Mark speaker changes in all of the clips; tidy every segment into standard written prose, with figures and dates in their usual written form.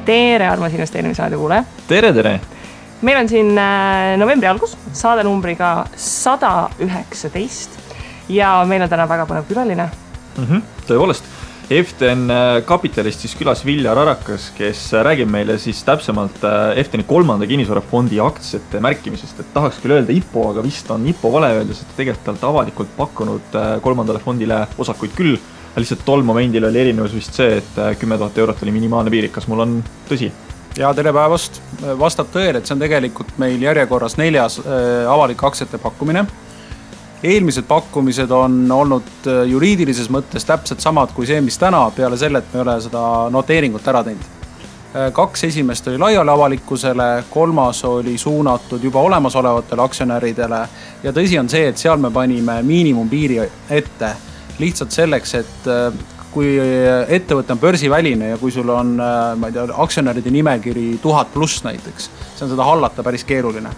Speaker 1: Tere, armas investeerimisraadi kuule.
Speaker 2: Tere!
Speaker 1: Meil on siin novembri algus, saade numbriga 119 ja meil on täna väga põnev külaline.
Speaker 2: Tõepoolest, EFTN kapitalist siis külas Viljar Arakas, kes räägib meile siis täpsemalt EFTN 3. kinnisvarafondi aktsiate märkimisest. Et tahaks küll öelda IPO, aga vist on IPO vale öeldes, et tegelikult avalikult pakkunud 3. fondile osakuid küll. Lihtsalt tol momendil oli erinevus vist see, et 10 000 eurot oli minimaalne piir. Kas mul on tõsi?
Speaker 3: Ja tere päevast. Vastab tõele, et see on tegelikult meil järjekorras 4. avalik aktsiate pakkumine. Eelmised pakkumised on olnud juriidilises mõttes täpselt samad kui see, mis täna, peale selle, et me ei ole seda noteeringut ära teinud. 2 esimest oli laiali avalikkusele, 3. oli suunatud juba olemasolevatele aktsionäridele ja tõsi on see, et seal me panime miinimumpiiri ette lihtsalt selleks, et kui ettevõte on börsiväline ja kui sul on aktsionäride nimekiri 1000 pluss näiteks, see on seda hallata päris keeruline.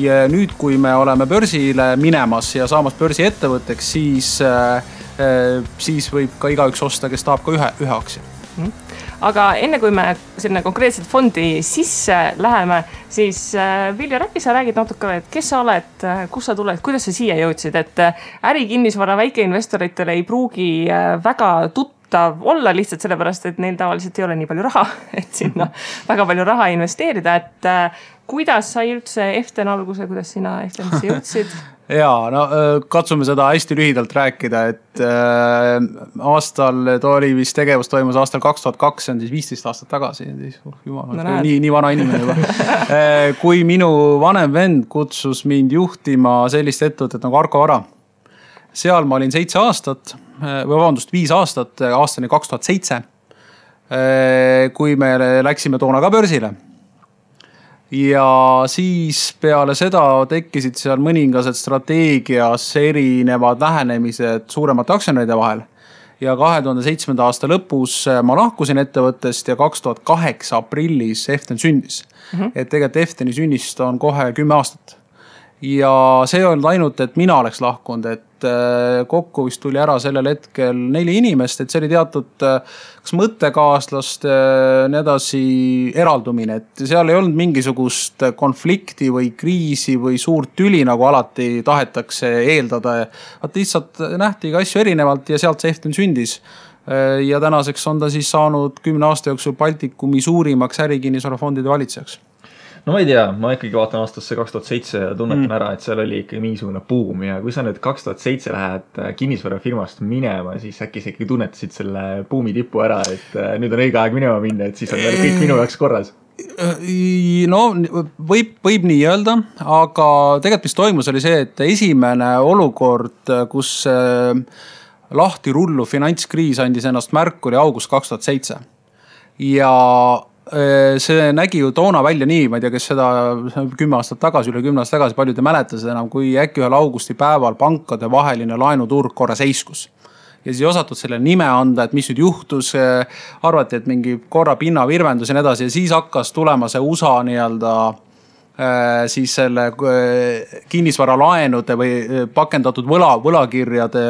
Speaker 3: Ja nüüd, kui me oleme börsile minemas ja saamas börsi ettevõtteks, siis võib ka igaüks osta, kes tahab ka ühe aktsia.
Speaker 1: Aga enne kui me selline konkreetselt fondi sisse läheme, siis Viljar, äkki sa räägid natuke, et kes sa oled, kus sa tuled, kuidas sa siia jõudsid, et ärikinnisvara väikeinvestoritele ei pruugi väga tuttav olla lihtsalt sellepärast, et neil tavaliselt ei ole nii palju raha, et sinna väga palju raha investeerida, et kuidas sai üldse EFTN alguse, kuidas sina EFTNisse jõudsid?
Speaker 3: Jaa, no katsume seda hästi lühidalt rääkida, et aastal oli vist tegevus toimus aastal 2002, see on siis 15 aastat tagasi, nii vana inimene juba. Kui minu vanem vend kutsus mind juhtima sellist ettevõtet nagu Arko Vara, seal ma olin 7 aastat, või vabandust 5 aastat, aastani 2007, kui me läksime toona ka börsile. Ja siis peale seda tekkisid seal mõningased strateegias erinevad lähenemised suuremate aktsionäride vahel. Ja 2007. aasta lõpus ma lahkusin ettevõttest ja 2008 aprillis EFTN sündis. Et tegelikult EFTN sünnist on kohe 10 aastat. Ja see on ainult, et mina oleks lahkunud, et kokku vist tuli ära sellel hetkel 4 inimest, et see oli teatud kas mõttekaaslaste nii edasi eraldumine, et seal ei olnud mingisugust konflikti või kriisi või suurt tüli, nagu alati tahetakse eeldada. Et lihtsalt nähti ka asju erinevalt ja sealt see EFTN sündis. Ja tänaseks on ta siis saanud 10 aasta jooksul Baltikumi suurimaks ärikinnisvarafondide valitsejaks.
Speaker 2: No ma ei tea, ma ikkagi vaatan aastasse 2007 ja tunnetan ära, et seal oli ikka mingisugune buum ja kui sa nüüd 2007 lähed kinnisvarafirmast minema, siis äkki sa ikkagi tunnetasid selle buumi tipu ära, et nüüd on õige aeg minema minna, et siis on kõik minu jaoks korras.
Speaker 3: No võib nii öelda, aga tegelikult mis toimus oli see, et esimene olukord, kus lahti rullu finantskriis andis ennast märku, oli august 2007 ja see nägi ju toona välja nii, ma ei tea, kes seda 10 aastat tagasi, üle 10 aastat tagasi, palju te mäletasite enam, kui äkki ühel augusti päeval pankade vaheline laenuturg korra seiskus. Ja siis ei osatud selle nime anda, et mis nüüd juhtus, arvati, et mingi korra pinna virvendus ja nii edasi ja siis hakkas tulema see USA nii-öelda siis selle kinnisvara laenude või pakendatud võlakirjade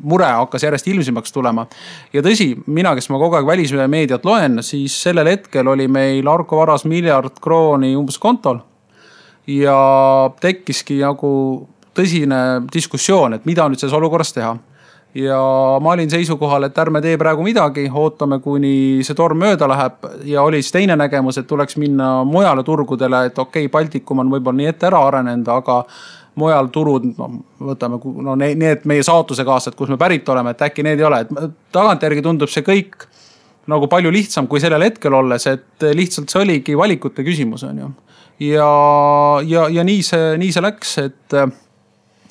Speaker 3: mure hakkas järjest ilmsimaks tulema. Ja tõsi, mina, kes ma kogu aeg välismeediat loen, siis sellel hetkel oli meil Arko Varas 1 miljard krooni umbes kontol ja tekkiski nagu tõsine diskussioon, et mida nüüd selles olukorras teha. Ja ma olin seisukohal, et ärme tee praegu midagi, ootame kuni see torm mööda läheb ja oli siis teine nägemus, et tuleks minna mujale turgudele, et okei, Baltikum on võib-olla nii ette ära arenenud, aga mujal turud, võtame need meie saatuse kaasad, kus me pärit oleme, et äkki need ei ole. Et tagantjärgi tundub see kõik nagu palju lihtsam kui sellel hetkel olles, et lihtsalt see oligi valikute küsimus on ju. Ja nii see läks, et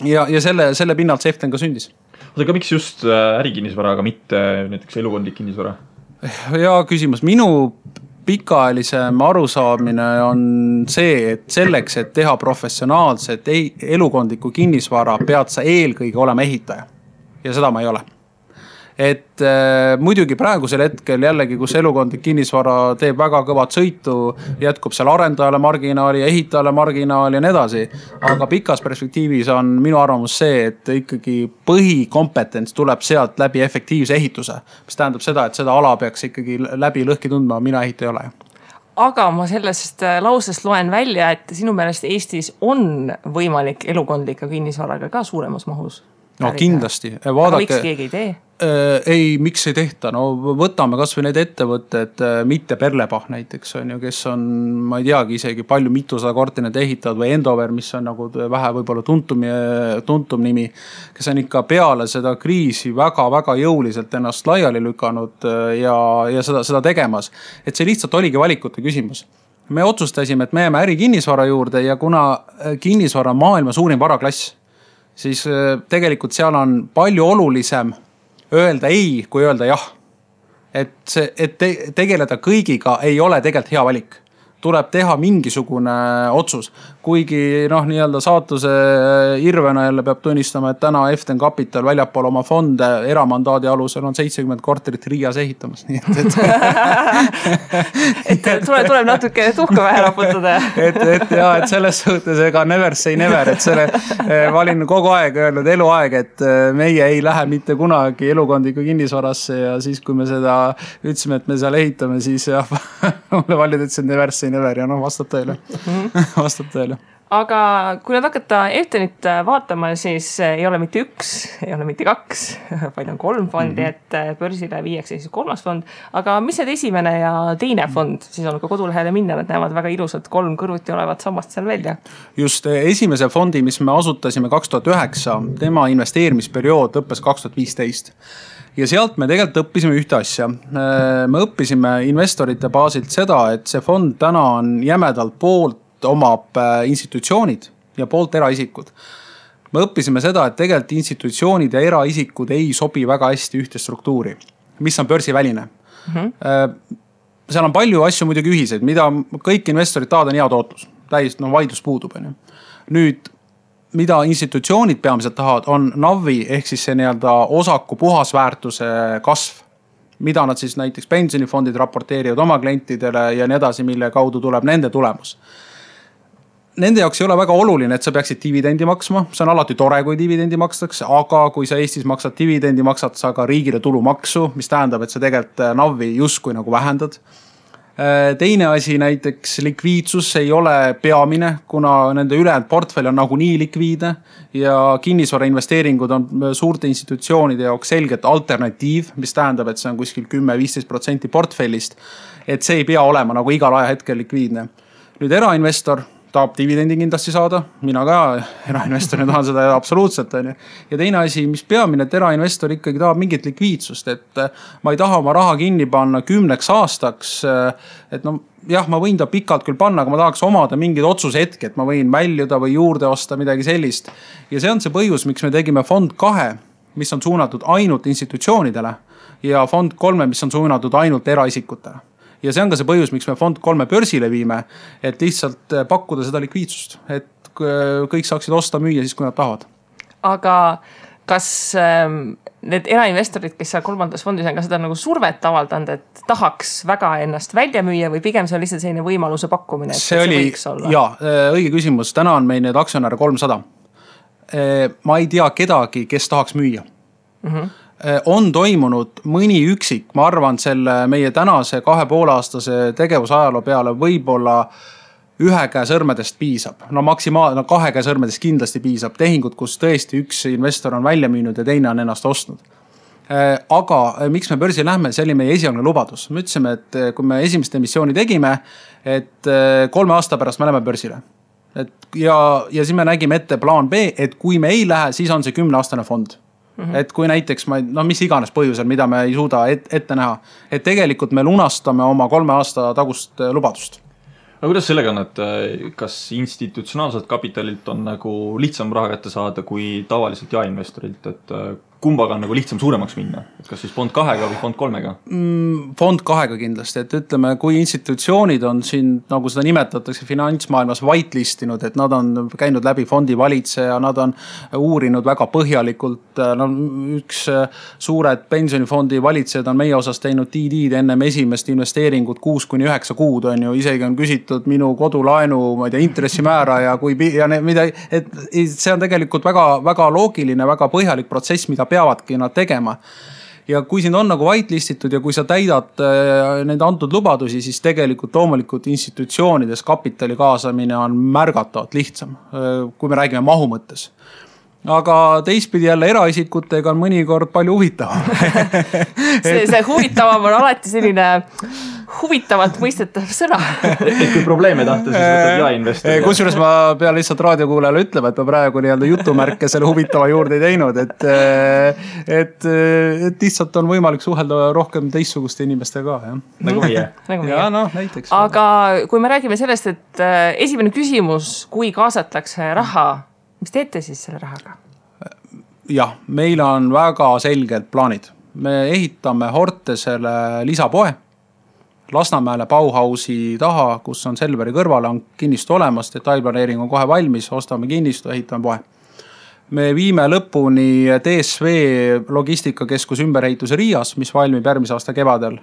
Speaker 3: ja selle pinnalt see EFTN ka sündis.
Speaker 2: Aga miks just ärikinnisvara, aga mitte näiteks elukondlik kinnisvara?
Speaker 3: Ja küsimus, minu pikaajalisem arusaamine on see, et selleks, et teha professionaalset elukondlikku kinnisvara, pead sa eelkõige olema ehitaja. Ja seda ma ei ole. et muidugi praegusel hetkel jällegi, kus elukondlik kinnisvara teeb väga kõvat sõitu, jätkub seal arendajale marginaali ja ehitajale marginaali ja nii edasi. Aga pikas perspektiivis on minu arvamus see, et ikkagi põhikompetents tuleb sealt läbi efektiivse ehituse, mis tähendab seda, et seda ala peaks ikkagi läbi lõhki tundma, mina ehitaja ei ole.
Speaker 1: Aga ma sellest lausest loen välja, et sinu meelest Eestis on võimalik elukondlika kinnisvaraga ka suuremas mahus.
Speaker 3: No kindlasti.
Speaker 1: Aga miks keegi ei tee?
Speaker 3: Ei, miks ei tehta? No võtame kas või need ettevõtted, mitte Perlepah näiteks on ju, kes on, ma ei teagi isegi palju mitusada korterit ehitavad või Endover, mis on nagu vähe võib-olla tuntum nimi, kes on ikka peale seda kriisi väga-väga jõuliselt ennast laiali lükanud ja seda tegemas. Et see lihtsalt oligi valikute küsimus. Me otsustasime, et me jääme ärikinnisvara juurde ja kuna kinnisvara on maailma suurim varaklass, siis tegelikult seal on palju olulisem öelda ei, kui öelda jah. Et tegeleda kõigiga ei ole tegelikult hea valik. Tuleb teha mingisugune otsus. Kuigi nii-öelda saatuse irvena jälle peab tunnistama, et täna Eften Capital väljapool oma fonde eramandaadi alusel on 70 korterit Riias ehitamas. Nii
Speaker 1: et tuleb natuke tuhka vähe raputada.
Speaker 3: et selles suhtes ega never say never, et selle ma olin kogu aeg öelnud eluaeg, et meie ei lähe mitte kunagi elukondliku kinnisvarasse ja siis, kui me seda ütlesime, et me seal ehitame, siis mulle valid ütlesid never say never ja vastab tõele. Vastab tõele.
Speaker 1: Aga kui nad hakata Eftenit vaatama, siis ei ole mitte üks, ei ole mitte kaks, vaid on 3 fondi, et börsile viiakse siis 3. fond. Aga mis need esimene ja teine fond, siis on ka kodulehele minna, nad näevad väga ilusad 3 kõrvuti olevat sammast seal välja. Just
Speaker 3: esimese fondi, mis me asutasime 2009, tema investeerimisperiood lõppes 2015. Ja sealt me tegelikult õppisime ühte asja. Me õppisime investorite baasilt seda, et see fond täna on jämedalt poolt omab institutsioonid ja poolt eraisikud. Me õppisime seda, et tegelikult institutsioonid ja eraisikud ei sobi väga hästi ühte struktuuri, mis on börsiväline. Seal on palju asju muidugi ühiseid, mida kõik investorid tahavad on hea tootlus. Täiesti vaidlus puudub. Nüüd, mida institutsioonid peamiselt tahavad, on NAV-i ehk siis see nii-öelda osaku puhasväärtuse kasv, mida nad siis näiteks pensionifondid raporteerivad oma klientidele ja nii edasi, mille kaudu tuleb nende tulemus. Nende jaoks ei ole väga oluline, et sa peaksid dividendi maksma. See on alati tore, kui dividendi makstakse, aga kui sa Eestis maksad dividendi, maksad sa ka riigile tulumaksu, mis tähendab, et sa tegelikult NAV-i justkui nagu vähendad. Teine asi näiteks likviidsus ei ole peamine, kuna nende ülejäänud portfell on nagu nii likviidne ja kinnisvara investeeringud on suurte institutsioonide jaoks selgelt alternatiiv, mis tähendab, et see on kuskil 10-15% portfellist, et see ei pea olema nagu igal ajahetkel likviidne. Nüüd erainvestor tahab dividendi kindlasti saada, mina ka erainvestorina tahan seda absoluutselt. Ja teine asi, mis peamine, et erainvestor ikkagi tahab mingit likviidsust, et ma ei taha oma raha kinni panna 10 aastaks, et jah, ma võin ta pikalt küll panna, aga ma tahaks omada mingid otsushetki, et ma võin väljuda või juurde osta midagi sellist. Ja see on see põhjus, miks me tegime fond 2, mis on suunatud ainult institutsioonidele ja fond 3, mis on suunatud ainult eraisikutele. Ja see on ka see põhjus, miks me fond 3 börsile viime, et lihtsalt pakkuda seda likviidsust, et kõik saaksid osta müüa siis, kui nad tahavad.
Speaker 1: Aga kas need erainvestorid, kes seal 3. fondis on ka seda nagu survet avaldanud, et tahaks väga ennast välja müüa või pigem see on lihtsalt selline võimaluse pakkumine?
Speaker 3: See oli, õige küsimus. Täna on meil need aktsionäre 300. Ma ei tea kedagi, kes tahaks müüa. On toimunud mõni üksik, ma arvan selle meie tänase 2,5-aastase tegevusajaloo peale võib-olla 1 käe sõrmedest piisab. Maksimaalne 2 käe sõrmedest kindlasti piisab. Tehingud, kus tõesti üks investor on välja müünud ja teine on ennast ostnud. Aga miks me börsi lähme, see oli meie esialgne lubadus. Me ütlesime, et kui me esimest emissiooni tegime, et 3 aasta pärast me läheme börsile. Ja siis me nägime ette plaan B, et kui me ei lähe, siis on see 10-aastane fond. Et kui näiteks, mis iganes põhjusel, mida me ei suuda ette näha, et tegelikult me lunastame oma 3 aasta tagust lubadust.
Speaker 2: Aga kuidas sellega on, et kas institutsionaalselt kapitalilt on nagu lihtsam raha kätte saada kui tavaliselt jaeinvestorilt, et kumbaga on nagu lihtsam suuremaks minna? Et kas siis fond 2-ga või fond 3-ga?
Speaker 3: Fond 2-ga kindlasti, et ütleme, kui institutsioonid on siin, nagu seda nimetatakse finantsmaailmas whitelistinud, et nad on käinud läbi fondi valitseja, nad on uurinud väga põhjalikult, no üks suured pensionifondi valitsejad on meie osas teinud DD-d ennem esimest investeeringut 6-9 kuud on ju, isegi on küsitud minu kodulaenu, ma ei tea, intressimäära ja mida, et see on tegelikult väga, väga loogiline, väga põhjalik protsess, mida peavadki nad tegema. Ja kui siin on nagu whitelistitud ja kui sa täidad nende antud lubadusi, siis tegelikult loomulikult institutsioonides kapitali kaasamine on märgatavalt lihtsam, kui me räägime mahu mõttes. Aga teistpidi jälle eraisikutega on mõnikord palju huvitavam.
Speaker 1: see huvitavam on alati selline huvitavalt mõistetav sõna.
Speaker 2: Et kui probleeme tahta, siis võtab ja-investor.
Speaker 3: Kusjuures ma pean lihtsalt raadiokuulajale ütlema, et ma praegu nii-öelda jutumärke selle huvitava juurde ei teinud, et lihtsalt on võimalik suhelda rohkem teistsuguste inimestega ka.
Speaker 2: Nagu meie.
Speaker 3: Ja, no, näiteks.
Speaker 1: Aga kui me räägime sellest, et esimene küsimus, kui kaasatakse raha, mis teete siis selle rahaga?
Speaker 3: Jah, meil on väga selged plaanid. Me ehitame Hortesele lisapoe. Lasnamäele Bauhausi taha, kus on Selveri kõrvale, on kinnistu olemas, detailplaneering on kohe valmis, ostame kinnistu, ehitame poe. Me viime lõpuni DSV logistikakeskus ümberehituse Riias, mis valmib järgmise aasta kevadel.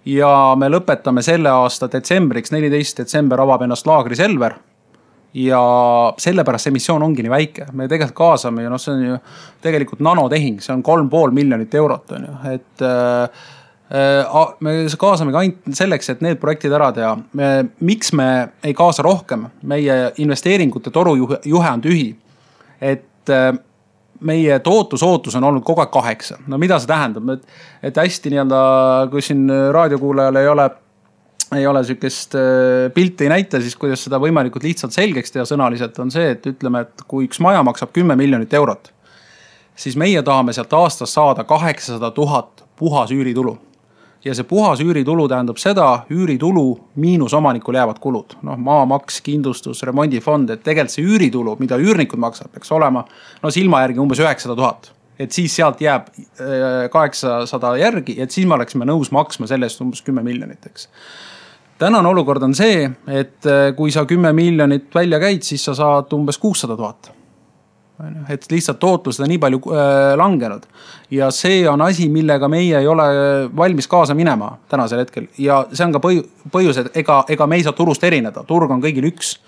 Speaker 3: Ja me lõpetame selle aasta detsembriks, 14. detsember avab ennast laagri Selver. Ja sellepärast see missioon ongi nii väike. Me tegelikult kaasame ja see on ju tegelikult nanotehing, see on 3,5 miljonit eurot. On ju. Et me kaasame ka ainult selleks, et need projektid ära teha. Miks me ei kaasa rohkem? Meie investeeringute torujuhe on tühi. Et meie tootusootus on olnud kogu aeg 8. No mida see tähendab? Et hästi nii-öelda, kui siin raadiokuulajal ei ole sükest pilti ei näita, siis kuidas seda võimalikult lihtsalt selgeks teha sõnaliselt on see, et ütleme, et kui üks maja maksab 10 miljonit eurot, siis meie tahame sealt aastas saada 800 000 puhas üüritulu. Ja see puhas üüritulu tähendab seda, üüritulu miinus omanikul jäävad kulud. No, maamaks, kindlustus, remondifond, et tegelikult see üüritulu, mida üürnikud maksab, peaks olema silma järgi umbes 900 000. Et siis sealt jääb 800 järgi, et siis me oleksime nõus maksma sellest umbes 10 miljonit, eks. Tänane olukord on see, et kui sa 10 miljonit välja käid, siis sa saad umbes 600 000. Et lihtsalt tootlus seda nii palju langenud. Ja see on asi, millega meie ei ole valmis kaasa minema tänasel hetkel. Ja see on ka põhjus, et ega me ei saa turust erineda. Turg on kõigil üks.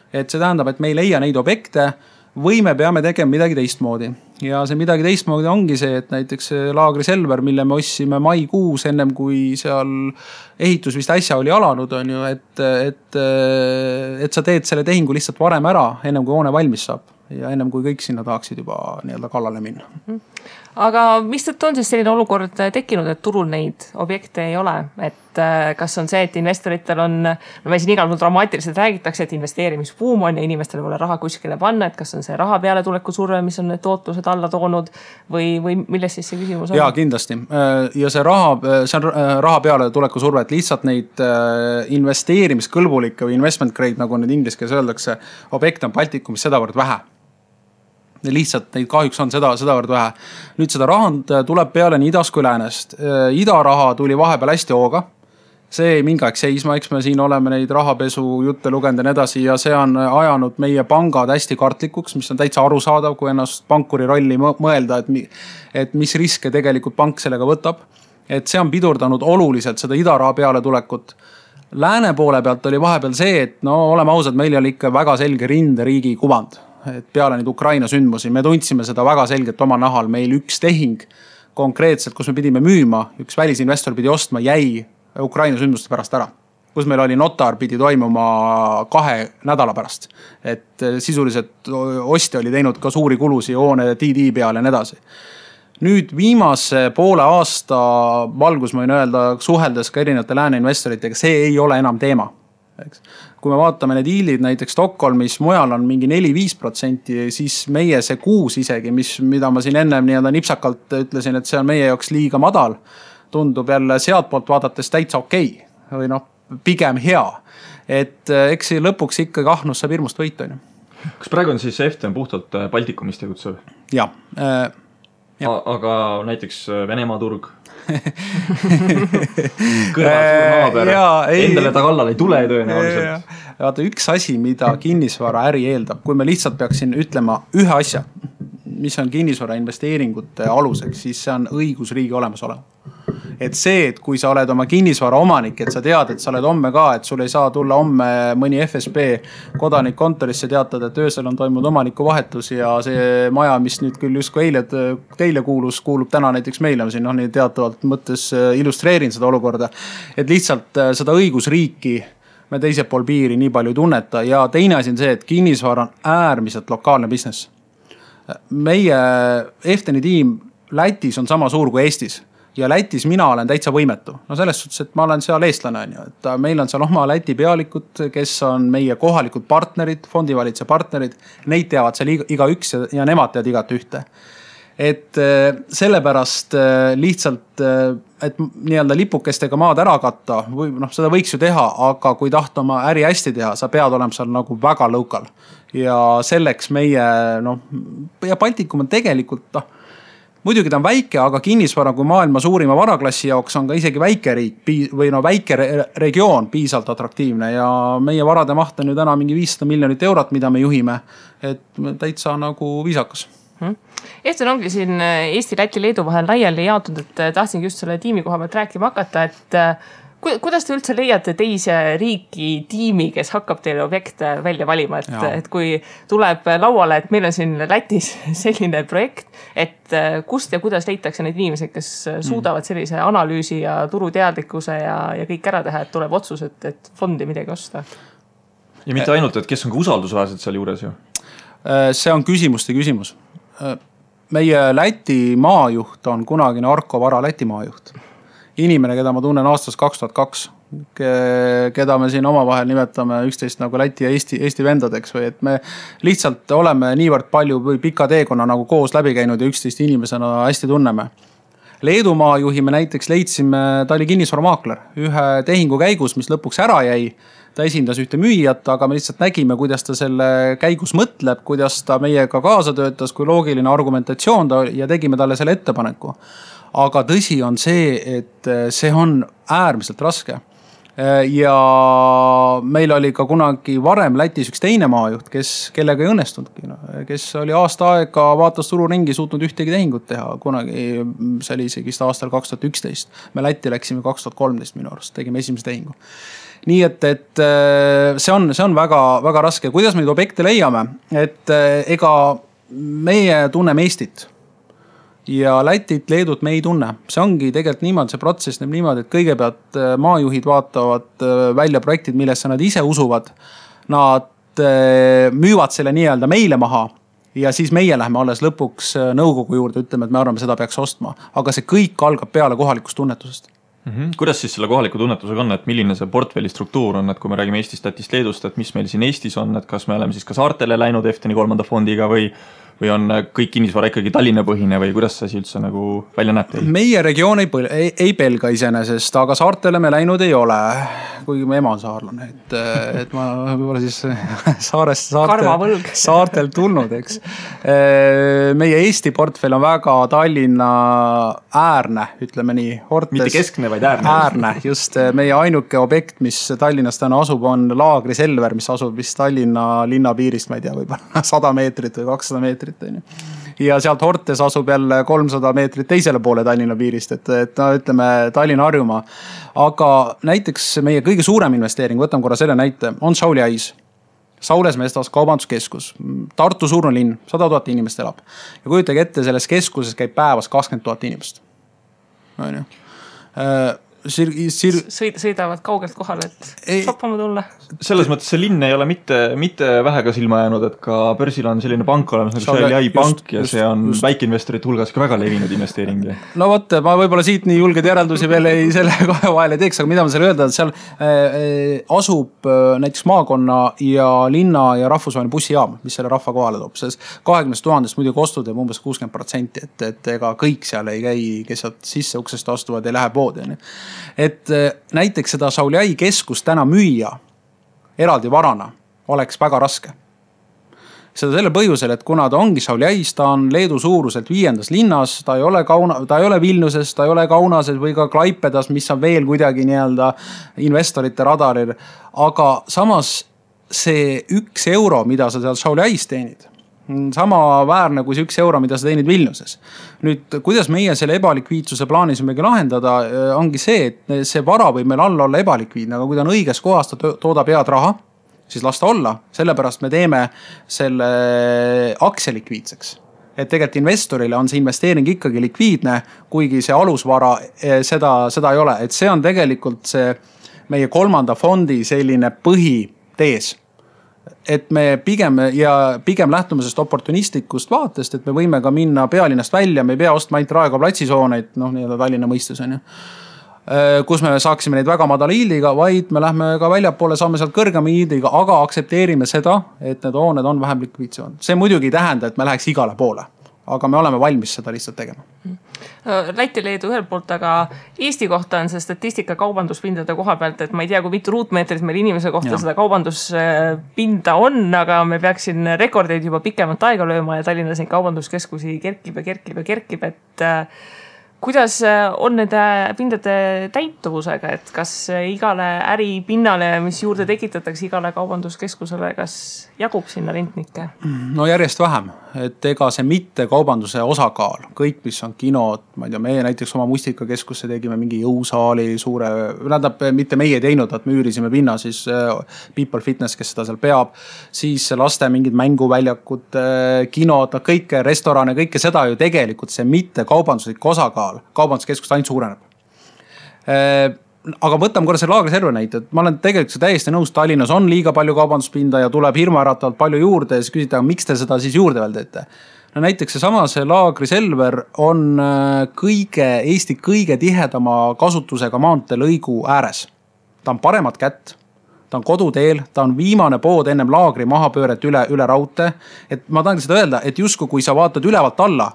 Speaker 3: Et see tähendab, et me ei leia neid objekte või me peame tegema midagi teistmoodi. Ja see midagi teistmoodi ongi see, et näiteks laagri Selver, mille me ossime maikuus ennem kui seal ehitus vist äsja oli alanud, on ju, et sa teed selle tehingu lihtsalt varem ära, ennem kui hoone valmis saab. Ja ennem kui kõik sinna tahaksid juba nii-öelda kallale minna.
Speaker 1: Aga mis tõttu on siis selline olukord tekkinud, et turul neid objekte ei ole? Et kas on see, et investoritel on, me siin igal pool dramaatiliselt räägitakse, et investeerimisbuum on ja inimestel pole raha kuskile panna, et kas on see raha peale tuleku surve, mis on need tootlused alla toonud või milles siis see küsimus on?
Speaker 3: Jaa, kindlasti. Ja see on raha peale tuleku surve, et lihtsalt neid investeerimiskõlbulikke või investment grade, nagu nüüd inglis keeles öeldakse, objekte on Baltikumis sedavõrd vähe. Lihtsalt neid kahjuks on sedavõrd vähe. Nüüd seda rahand tuleb peale nii idast kui läänest. Idaraha tuli vahepeal hästi hooga. See ei mingi aeg seisma, eks me siin oleme neid rahapesu jutte lugenud ja nii edasi ja see on ajanud meie pangad hästi kartlikuks, mis on täitsa arusaadav, kui ennast pankuri rolli mõelda, et mis riske tegelikult pank sellega võtab. Et see on pidurdanud oluliselt seda idaraha peale tulekut. Lääne poole pealt oli vahepeal see, et oleme ausad, meil oli ikka väga selge rinderiigi kuvand. Et peale nüüd Ukraina sündmusi, me tundsime seda väga selgelt oma nahal, meil üks tehing konkreetselt, kus me pidime müüma, üks välisinvestor pidi ostma, jäi Ukraina sündmuste pärast ära, kus meil oli notar pidi toimuma 2 nädala pärast, et sisuliselt ostja oli teinud ka suuri kulusi hoone DD peale ja nii edasi. Nüüd viimase poole aasta valgus, ma võin öelda, suheldes ka erinevate lääne investoritega, see ei ole enam teema. Kui me vaatame need hiilid näiteks Stockholmis, mujal on mingi 4-5%, siis meie see 6 isegi, mida ma siin ennem nii-öelda nipsakalt ütlesin, et see on meie jaoks liiga madal, tundub jälle sealt poolt vaadates täitsa okei või pigem hea. Et eks lõpuks ikkagi ahnus saab hirmust võita.
Speaker 2: Kas praegu on siis FTN puhtalt Baltikumist tegutsev?
Speaker 3: Jah.
Speaker 2: Aga näiteks Venemaa turg kõrval suur naaber, endale ta kallal ei tule tõenäoliselt.
Speaker 3: Vaata, üks asi, mida kinnisvara äri eeldab, kui me lihtsalt peaksin ütlema ühe asja, mis on kinnisvara investeeringute aluseks, siis see on õigusriigi olemasolev. Et see, et kui sa oled oma kinnisvara omanik, et sa tead, et sa oled homme ka, et sul ei saa tulla homme mõni FSB kodanik kontorisse teatada, et öösel on toimunud omaniku vahetus ja see maja, mis nüüd küll justkui eile teile kuulub täna näiteks meile, siin nii teatavalt mõttes illustreerin seda olukorda, et lihtsalt seda õigusriiki me teisel pool piiri nii palju ei tunneta ja teine asi on see, et kinnisvara on äärmiselt lokaalne business. Meie Efteni tiim Lätis on sama suur kui Eestis. Ja Lätis mina olen täitsa võimetu. No selles suhtes, et ma olen seal eestlane. Et meil on seal oma Läti pealikud, kes on meie kohalikud partnerid, fondivalitse partnerid. Neid teavad seal iga üks ja nemad teavad igat ühte. Et sellepärast lihtsalt, et nii-öelda lipukestega maad ära katta, või seda võiks ju teha, aga kui tahta oma äri hästi teha, sa pead olema seal nagu väga local. Ja selleks meie, ja Baltikum on tegelikult, muidugi ta on väike, aga kinnisvara kui maailma suurima varaklassi jaoks on ka isegi väike riik või väike regioon piisavalt atraktiivne ja meie varade maht on ju täna mingi 500 miljonit eurot, mida me juhime, et täitsa nagu viisakas.
Speaker 1: Eften ongi siin Eesti, Läti, Leedu vahel laiali jaotud, et tahtsingi just selle tiimi koha pealt rääkima hakata, et kuidas te üldse leiate teise riiki tiimi, kes hakkab teile objekte välja valima, et kui tuleb lauale, et meil on siin Lätis selline projekt, et kust ja kuidas leitakse neid inimesed, kes suudavad sellise analüüsi ja turuteadlikkuse ja kõik ära teha, et tuleb otsus, et fondi midagi osta?
Speaker 2: Ja mitte ainult, et kes on ka usaldusväärsed seal juures ju?
Speaker 3: See on küsimuste küsimus. Meie Läti maajuht on kunagine Arko Vara Läti maajuht. Inimene, keda ma tunnen aastast 2002, keda me siin omavahel nimetame üksteist nagu Läti ja Eesti vendadeks või et me lihtsalt oleme niivõrd palju või pika teekonna nagu koos läbi käinud ja üksteist inimesena hästi tunneme. Leedu maajuhi me näiteks leidsime, ta oli kinnisvaramaakler ühe tehingu käigus, mis lõpuks ära jäi. Ta esindas ühte müüjat, aga me lihtsalt nägime, kuidas ta selle käigus mõtleb, kuidas ta meiega kaasa töötas, kui loogiline argumentatsioon ta ja tegime talle selle ettepaneku. Aga tõsi on see, et see on äärmiselt raske. Ja meil oli ka kunagi varem Lätis üks teine maajuht, kellega ei õnnestunudki, kes oli aasta aega vaatas turu ringi suutnud ühtegi tehingut teha. Kunagi see oli isegi aastal 2011. Me Lätti läksime 2013 minu arust, tegime esimese tehingu. Nii et see on väga, väga raske. Kuidas me neid objekte leiame? Et ega meie tunneme Eestit ja Lätit, Leedut me ei tunne. See ongi tegelikult niimoodi, see protsess näeb niimoodi, et kõigepealt maajuhid vaatavad välja projektid, millesse nad ise usuvad. Nad müüvad selle nii-öelda meile maha ja siis meie läheme alles lõpuks nõukogu juurde, ütleme, et me arvame, seda peaks ostma. Aga see kõik algab peale kohalikust tunnetusest.
Speaker 2: Kuidas siis selle kohaliku tunnetusega on, et milline see portfelli struktuur on, et kui me räägime Eestist, Lätist, Leedust, et mis meil siin Eestis on, et kas me oleme siis ka saartele läinud Efteni 3. fondiga või on kõik kinnisvara ikkagi Tallinna põhine või kuidas see üldse nagu välja näeb teil? Meie
Speaker 3: regioon ei pelga iseenesest, aga saartele me läinud ei ole, kuigi me ema on saarlane, et ma võib-olla siis saartel tulnud, eks. Meie Eesti portfell on väga Tallinna äärne, ütleme nii.
Speaker 2: Mitte keskne, vaid äärne.
Speaker 3: Äärne, just meie ainuke objekt, mis Tallinnas täna asub, on Laagri Selver, mis asub vist Tallinna linna piirist, ma ei tea, võib-olla 100 meetrit või 200 meetrit. Ja sealt Hortes asub jälle 300 meetrit teisele poole Tallinna piirist, et ütleme Tallinna Harjumaa. Aga näiteks meie kõige suurem investeering, võtame korra selle näite, on Sauli Ais. Saules Mestas kaubanduskeskus, Tartu suurne linn, 100 000 inimest elab. Ja kujutage ette, selles keskuses käib päevas 20 000 inimest.
Speaker 1: Sõidavad kaugelt kohale, et shoppama tulla.
Speaker 2: Selles mõttes see linn ei ole mitte vähega silma jäänud, et ka börsil on selline pank olemas, nagu Sauli pank ja see on väikeinvestorite hulgas ka väga levinud investeering.
Speaker 3: No võtta, ma võib-olla siit nii julged järeldusi veel selle kahe vahele teeks, aga mida ma selle öelda, et seal asub näiteks maakonna ja linna ja rahvusvaheline bussijaam, mis selle rahva kohale toob. 20 000 muidugi ostud jääb umbes 60%, et ega kõik seal ei käi, kes sisse uksest astuvad ja läheb poodi. Et näiteks seda Sauli Ai keskust täna müüa eraldi varana oleks väga raske. seda selle põhjusel, et kuna ta ongi Šauliais, ta on Leedu suuruselt 5. linnas, ta ei ole Vilniuses, ta ei ole Kaunases või ka Klaipedas, mis on veel kuidagi nii-öelda investorite radaril. Aga samas see 1 euro, mida sa seal Šauliais teenid, sama väärne kui see 1 euro, mida sa teenid Vilniuses. Nüüd, kuidas meie selle ebalikviidsuse plaanisimegi lahendada, ongi see, et see vara võib meil alla olla ebalikviidne, aga kui ta on õiges kohas, ta toodab head raha, siis las ta olla. Sellepärast me teeme selle aktsia likviidseks. Et tegelikult investorile on see investeering ikkagi likviidne, kuigi see alusvara seda ei ole. Et see on tegelikult see meie 3. fondi selline põhitees. Et me pigem lähtume sellest oportunistlikust vaatest, et me võime ka minna pealinnast välja, me ei pea ostma ainult Raekoja platsisooneid, nii-öelda Tallinna mõistus on ju, kus me saaksime neid väga madala yieldiga, vaid me lähme ka väljapoole, saame sealt kõrgema yieldiga, aga aksepteerime seda, et need hooned on vähem likviidsemad. See muidugi ei tähenda, et me läheks igale poole, aga me oleme valmis seda lihtsalt tegema.
Speaker 1: Läti Leedu ühelt poolt, aga Eesti kohta on see statistika kaubanduspindade koha pealt, et ma ei tea, kui mitu ruutmeetrit meil inimese kohta seda kaubanduspinda on, aga me peaksin rekordeid juba pikemat aega lööma ja Tallinnas neid kaubanduskeskusi kerkib, et kuidas on nende pindade täituvusega, et kas igale äripinnale, mis juurde tekitatakse igale kaubanduskeskusele, kas jagub sinna rentnikke?
Speaker 3: No järjest vähem, et ega see mitte kaubanduse osakaal, kõik mis on kinod, ma ei tea, meie näiteks oma Mustikakeskusse tegime mingi jõusaali suure, mitte meie teinud, et me üürisime pinna, siis People Fitness, kes seda seal peab, siis laste mingid mänguväljakud, kinod, kõike, restorane, kõike seda ju tegelikult see mitte kaubanduslik osakaal kaubanduskeskust ainult suureneb. Aga võtame korra see laagriserve näite, et ma olen tegelikult täiesti nõus, Tallinnas on liiga palju kaubanduspinda ja tuleb hirmuäratavalt palju juurde ja siis küsida, miks te seda siis juurde veel teete? No näiteks see laagriselver on Eesti kõige tihedama kasutusega maanteelõigu ääres. Ta on paremat kätt, ta on koduteel, ta on viimane pood ennem laagri mahapööret üle raudtee. Et ma tahan seda öelda, et justkui kui sa vaatad ülevalt alla,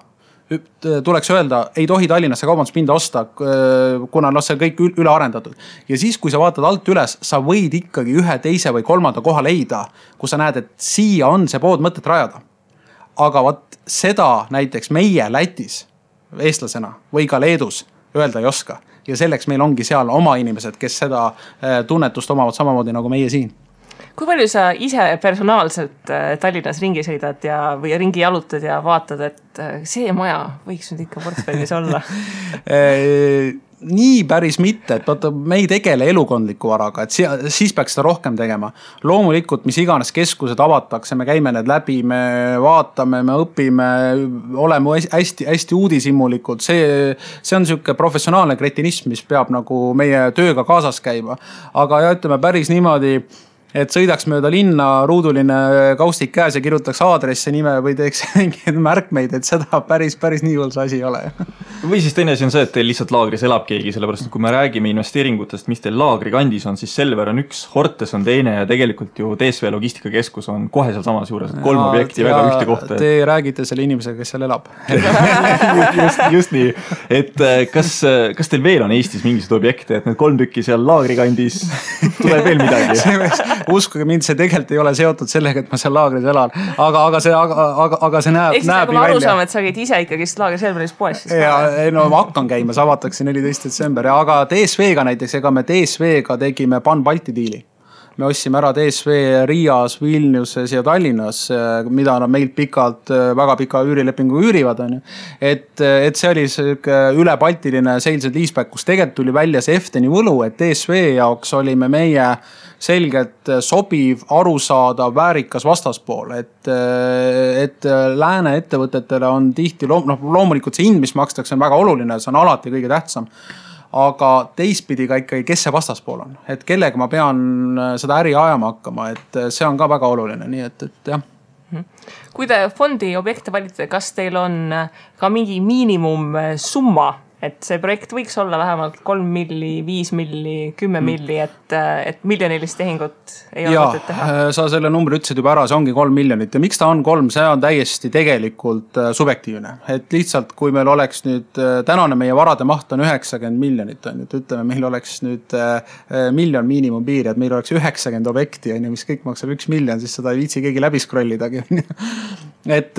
Speaker 3: tuleks öelda, ei tohi Tallinnasse kaubanduspinda osta, kuna see kõik üle arendatud. Ja siis, kui sa vaatad alt üles, sa võid ikkagi 1, 2 või 3. koha leida, kus sa näed, et siia on see pood mõtet rajada. Aga seda näiteks meie Lätis, eestlasena või ka Leedus öelda ei oska. Ja selleks meil ongi seal oma inimesed, kes seda tunnetust omavad samamoodi nagu meie siin.
Speaker 1: Kui palju sa ise personaalselt Tallinnas ringi sõidad või ringi jalutad ja vaatad, et see maja võiks nüüd ikka portfellis olla?
Speaker 3: Nii päris mitte, et vaata, me ei tegele elukondliku varaga, et siis peaks seda rohkem tegema. Loomulikult, mis iganes keskused avatakse, me käime need läbi, me vaatame, me õpime, oleme hästi uudishimulikud. See on selline professionaalne kretinism, mis peab nagu meie tööga kaasas käima. Aga ütleme päris niimoodi, et sõidaks mööda linna ruuduline kaustik käes ja kirjutaks aadresse nime või teeks mingeid märkmeid, et seda päris nii hull see asi ei ole.
Speaker 2: Või siis teine asi on see, et teil lihtsalt laagris elab keegi, sellepärast et kui me räägime investeeringutest, mis teil laagri kandis on, siis Selver on üks, Hortes on teine ja tegelikult ju DSV logistikakeskus on kohe seal samas juures, et 3 objekti väga ühte kohta.
Speaker 3: Te räägite selle inimesega, kes seal elab.
Speaker 2: just nii. Et kas teil veel on Eestis mingisugused objekte, et need 3 tükki seal laagri kandis tuleb veel midagi?
Speaker 3: Uskuge mind, see tegelikult ei ole seotud sellega, et ma seal laagris elan, aga see näeb nii välja.
Speaker 1: Ma aru saame, et sa käid ise ikkagi laagri Selveris poes.
Speaker 3: No ma hakkan käima, see avatakse 14. detsember, aga DSV-ga näiteks, ega me DSV-ga tegime Pan-Balti diili. Me ostsime ära DSV Riias, Vilniuses ja Tallinnas, mida nad meilt väga pika üürilepingu üürivad. Et see oli ülebaltiline sales and leaseback, kus tegelikult tuli välja see Efteni võlu, et DSV jaoks olime meie selgelt sobiv, arusaadav, väärikas vastaspool, et lääne ettevõtetele on tihti, loomulikult see hind, mis makstakse, on väga oluline, see on alati kõige tähtsam. Aga teistpidi ka ikkagi, kes see vastaspool on, et kellega ma pean seda äri ajama hakkama, et see on ka väga oluline, nii et jah.
Speaker 1: Kui te fondi objekte valite, kas teil on ka mingi miinimum summa, et see projekt võiks olla vähemalt 3 milli, 5 milli, 10 milli, et miljonilist tehingut ei ole mõtet teha.
Speaker 3: Sa selle numbri ütlesid juba ära, see ongi 3 miljonit ja miks ta on 3, see on täiesti tegelikult subjektiivne. Et lihtsalt, kui meil oleks nüüd, tänane meie varade maht on 90 miljonit, on, et ütleme, meil oleks nüüd miljon miinimumpiiri, et meil oleks 90 objekti, mis kõik maksab 1 miljon, siis seda ei viitsi keegi läbi scrollidagi. Et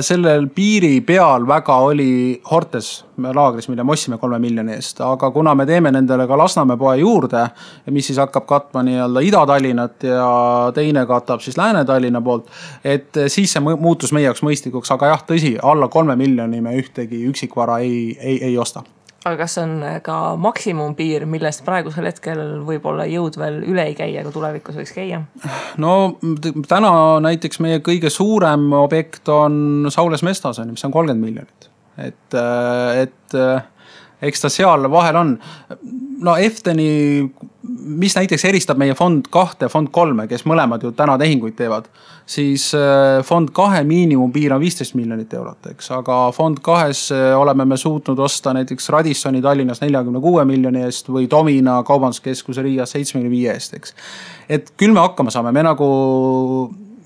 Speaker 3: sellel piiri peal väga oli Hortes laagris, mille me ossime 3 miljoni eest, aga kuna me teeme nendele ka Lasnamäe poe juurde, mis siis hakkab katma nii-öelda Ida-Tallinnat ja teine katab siis Lääne-Tallinna poolt, et siis see muutus meie jaoks mõistlikuks, aga jah, tõsi, alla 3 miljoni me ühtegi üksikvara ei osta.
Speaker 1: Aga kas on ka maksimumpiir, millest praegusel hetkel võib-olla jõud veel üle ei käia, kui tulevikus võiks käia?
Speaker 3: No täna näiteks meie kõige suurem objekt on Saules Mestas, mis on 30 miljonit. Et eks ta seal vahel on. No Efteni, mis näiteks eristab meie fond 2 ja fond 3, kes mõlemad ju täna tehinguid teevad, siis fond 2 miinimumpiir on 15 miljonit eurot, eks, aga fond 2 oleme me suutnud osta näiteks Radissoni Tallinnas 46 miljoni eest või Domina kaubanduskeskuse Riias 75 eest, eks. Et küll me hakkama saame, me nagu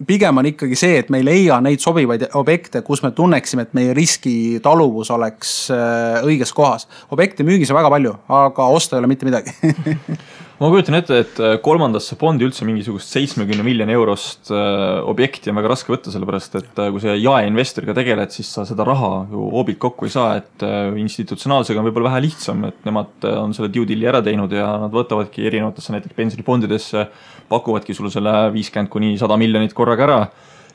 Speaker 3: pigem on ikkagi see, et me ei leia neid sobivaid objekte, kus me tunneksime, et meie riskitaluvus oleks õiges kohas. Objekti müügis on väga palju, aga osta ei ole mitte midagi.
Speaker 2: Ma kujutan ette, et kolmandasse fondi üldse mingisugust 70 miljoni eurost objekti on väga raske võtta, sellepärast, et kui see jaeinvestoriga tegeled, siis sa seda raha ju hoobilt kokku ei saa, et institutsionaalsega on võib-olla vähe lihtsam, et nemad on selle due deali ära teinud ja nad võtavadki erinevatesse näiteks pensionifondidesse, pakuvadki sulle selle 50 kuni 100 miljonit korraga ära.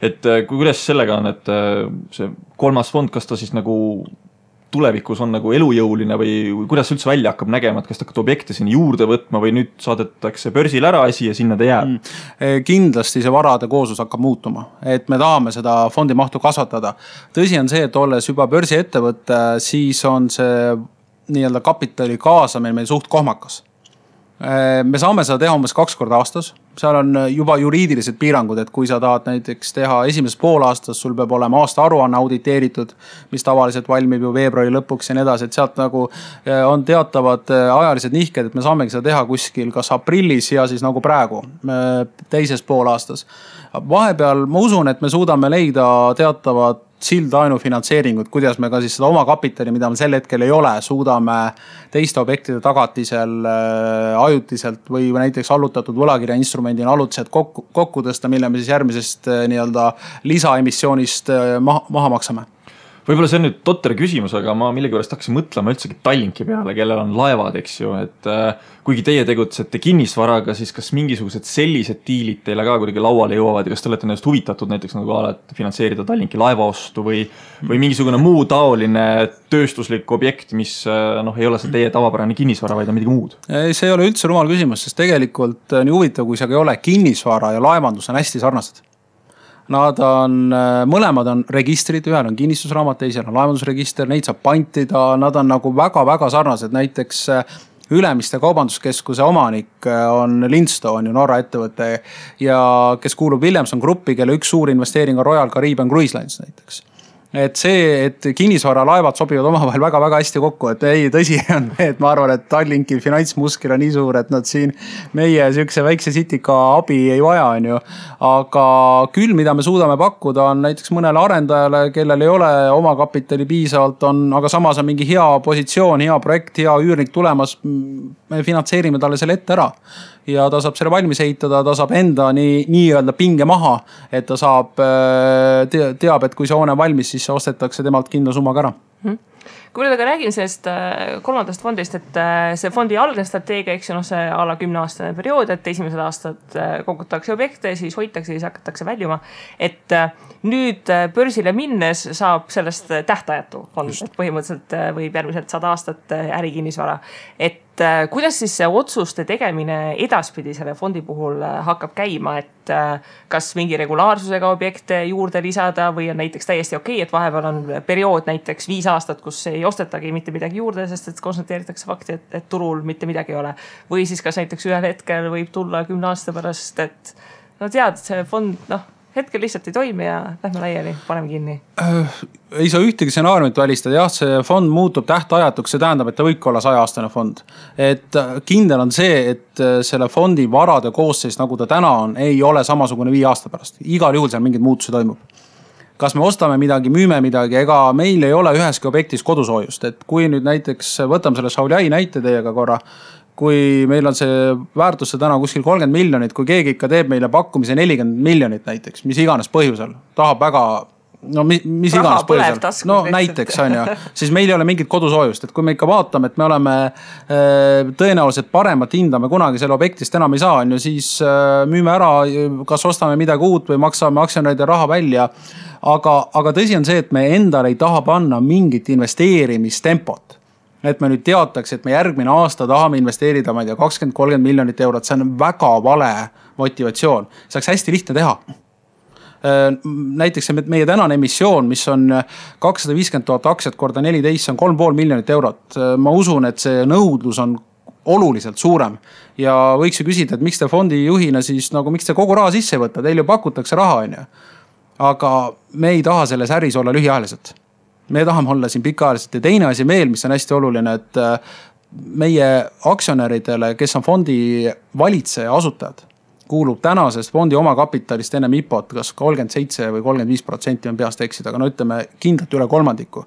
Speaker 2: Et kuidas sellega on, et see kolmas fond, kas ta siis nagu tulevikus on nagu elujõuline või kuidas üldse välja hakkab nägema, et kas ta hakkab objekte sinna juurde võtma või nüüd saadetakse börsil ära asi ja sinna ta jääb?
Speaker 3: Kindlasti see varade kooslus hakkab muutuma, et me tahame seda fondi mahtu kasvatada. Tõsi on see, et olles juba börsi ettevõtte, siis on see nii-öelda kapitali kaasamine meil suht kohmakas. Me saame seda teha umbes 2 korda aastas. Seal on juba juriidilised piirangud, et kui sa tahad näiteks teha esimeses poolaastas, sul peab olema aasta aruanne auditeeritud, mis tavaliselt valmib ju veebruari lõpuks ja nii edasi, et sealt nagu on teatavad ajalised nihked, et me saamegi seda teha kuskil kas aprillis ja siis nagu praegu teises poolaastas. Vahepeal ma usun, et me suudame leida teatavad sildainu finantseeringut, kuidas me ka siis seda oma kapitali, mida me sel hetkel ei ole, suudame teiste objektide tagatisel ajutiselt või näiteks allutatud võlakirja instrumendina allutiselt kokku tõsta, mille me siis järgmisest nii-öelda lisaemissioonist maha maksame.
Speaker 2: Võib-olla see on nüüd totter küsimus, aga ma millegipärast hakkasin mõtlema üldsegi Tallinki peale, kellel on laevad, eks ju, et kuigi teie tegutsete kinnisvaraga, siis kas mingisugused sellised diilid teile ka kuidagi lauale jõuavad ja kas te olete nendest huvitatud näiteks nagu alati finantseerida Tallinki laevaostu või mingisugune muu taoline tööstuslik objekt, mis ei ole see teie tavapärane kinnisvara, vaid on midagi muud?
Speaker 3: See ei ole üldse rumal küsimus, sest tegelikult nii huvitav, kui see ei ole kinnisvara ja laevandus on hästi sarnased. Nad on, mõlemad on registrid, ühel on kinnistusraamat, teisel on laevandusregister, neid saab pantida, nad on nagu väga-väga sarnased, näiteks Ülemiste kaubanduskeskuse omanik on Lindstone, Norra ettevõte ja kes kuulub Williamson Gruppi, kelle üks suur investeering on Royal Caribbean Cruise Lines näiteks. Et see, et kinnisvara laevad sobivad omavahel väga-väga hästi kokku, et ei, tõsi on, et ma arvan, et Tallinki finantsmuskil on nii suur, et nad siin meie sükse väikse sitika abi ei vaja, on ju. Aga küll, mida me suudame pakkuda, on näiteks mõnele arendajale, kellel ei ole oma kapitali piisavalt, aga samas on mingi hea positsioon, hea projekt, hea üürnik tulemas, me finantseerime talle selle ette ära. Ja ta saab selle valmis ehitada, ta saab enda nii-öelda pinge maha, et ta saab, teab, et kui see hoone on valmis, siis see ostetakse temalt kindla summaga ära.
Speaker 1: Kui nüüd aga räägin sellest kolmandast fondist, et see fondi algne strateegia, eks see alla 10-aastane periood, et esimesed aastad kogutakse objekte, siis hoitakse, siis hakatakse väljuma. Et nüüd börsile minnes saab sellest tähtajatu fond, et põhimõtteliselt võib järgmiselt 100 aastat ärikinnisvara. Et kuidas siis see otsuste tegemine edaspidi selle fondi puhul hakkab käima, et kas mingi regulaarsusega objekte juurde lisada või on näiteks täiesti okei, et vahepeal on periood näiteks 5 aastat, kus ei ostetagi mitte midagi juurde, sest et konstateeritakse fakti, et turul mitte midagi ei ole. Või siis kas näiteks ühel hetkel võib tulla 10 aasta pärast, et tead, see fond hetkel lihtsalt ei toimi ja lähme laiali, paneme kinni?
Speaker 3: Ei saa ühtegi stsenaariumit välistada. Jah, see fond muutub tähtajatuks, see tähendab, et ta võibki olla 100-aastane fond. Et kindel on see, et selle fondi varade koosseis, nagu ta täna on, ei ole samasugune 5 aasta pärast. Igal juhul seal mingid muutusi toimub. Kas me ostame midagi, müüme midagi, ega meil ei ole üheski objektis kodusoojust. Et kui nüüd näiteks võtame selle Šauliai näite teiega korra, kui meil on see väärtusse täna kuskil 30 miljonit, kui keegi ikka teeb meile pakkumise 40 miljonit näiteks, mis iganes põhjusel, tahab väga, no mis iganes põhjusel, no näiteks on ju, siis meil ei ole mingit kodusoojust, et kui me ikka vaatame, et me oleme tõenäoliselt paremat hinda me kunagi selle objektist enam ei saa, on ju, siis müüme ära, kas ostame midagi uut või maksame aktsionäride raha välja. Aga tõsi on see, et me endale ei taha panna mingit investeerimistempot. Et me nüüd teataks, et me järgmine aasta tahame investeerida, ma ei tea, 20-30 miljonit eurot, see on väga vale motivatsioon. See oleks hästi lihtne teha. Näiteks meie tänane emissioon, mis on 250 000 aktsiat korda 14, see on 3,5 miljonit eurot. Ma usun, et see nõudlus on oluliselt suurem ja võiks ju küsida, et miks te fondi juhina siis, nagu miks te kogu raha sisse võtta, teil ju pakutakse raha, on ju. Aga me ei taha selles äris olla lühiajaliselt. Me tahame olla siin pikaajaliselt ja teine asi veel, mis on hästi oluline, et meie aktsionäridele, kes on fondi valitseja asutajad, kuulub tänasest fondi omakapitalist enne IPO-t kas 37 või 35% on peast eksida, aga no ütleme kindlalt üle 3%.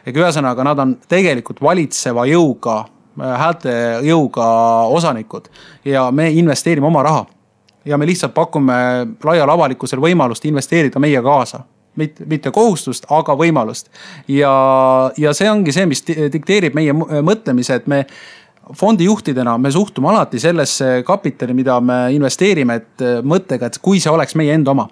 Speaker 3: Ega ühesõnaga nad on tegelikult valitseva jõuga, häälte jõuga osanikud ja me investeerime oma raha. Ja me lihtsalt pakume laial avalikkusel võimalust investeerida meie kaasa. Mitte kohustust, aga võimalust. Ja see ongi see, mis dikteerib meie mõtlemise, et me fondi juhtidena me suhtume alati sellesse kapitali, mida me investeerime, et mõttega, et kui see oleks meie enda oma.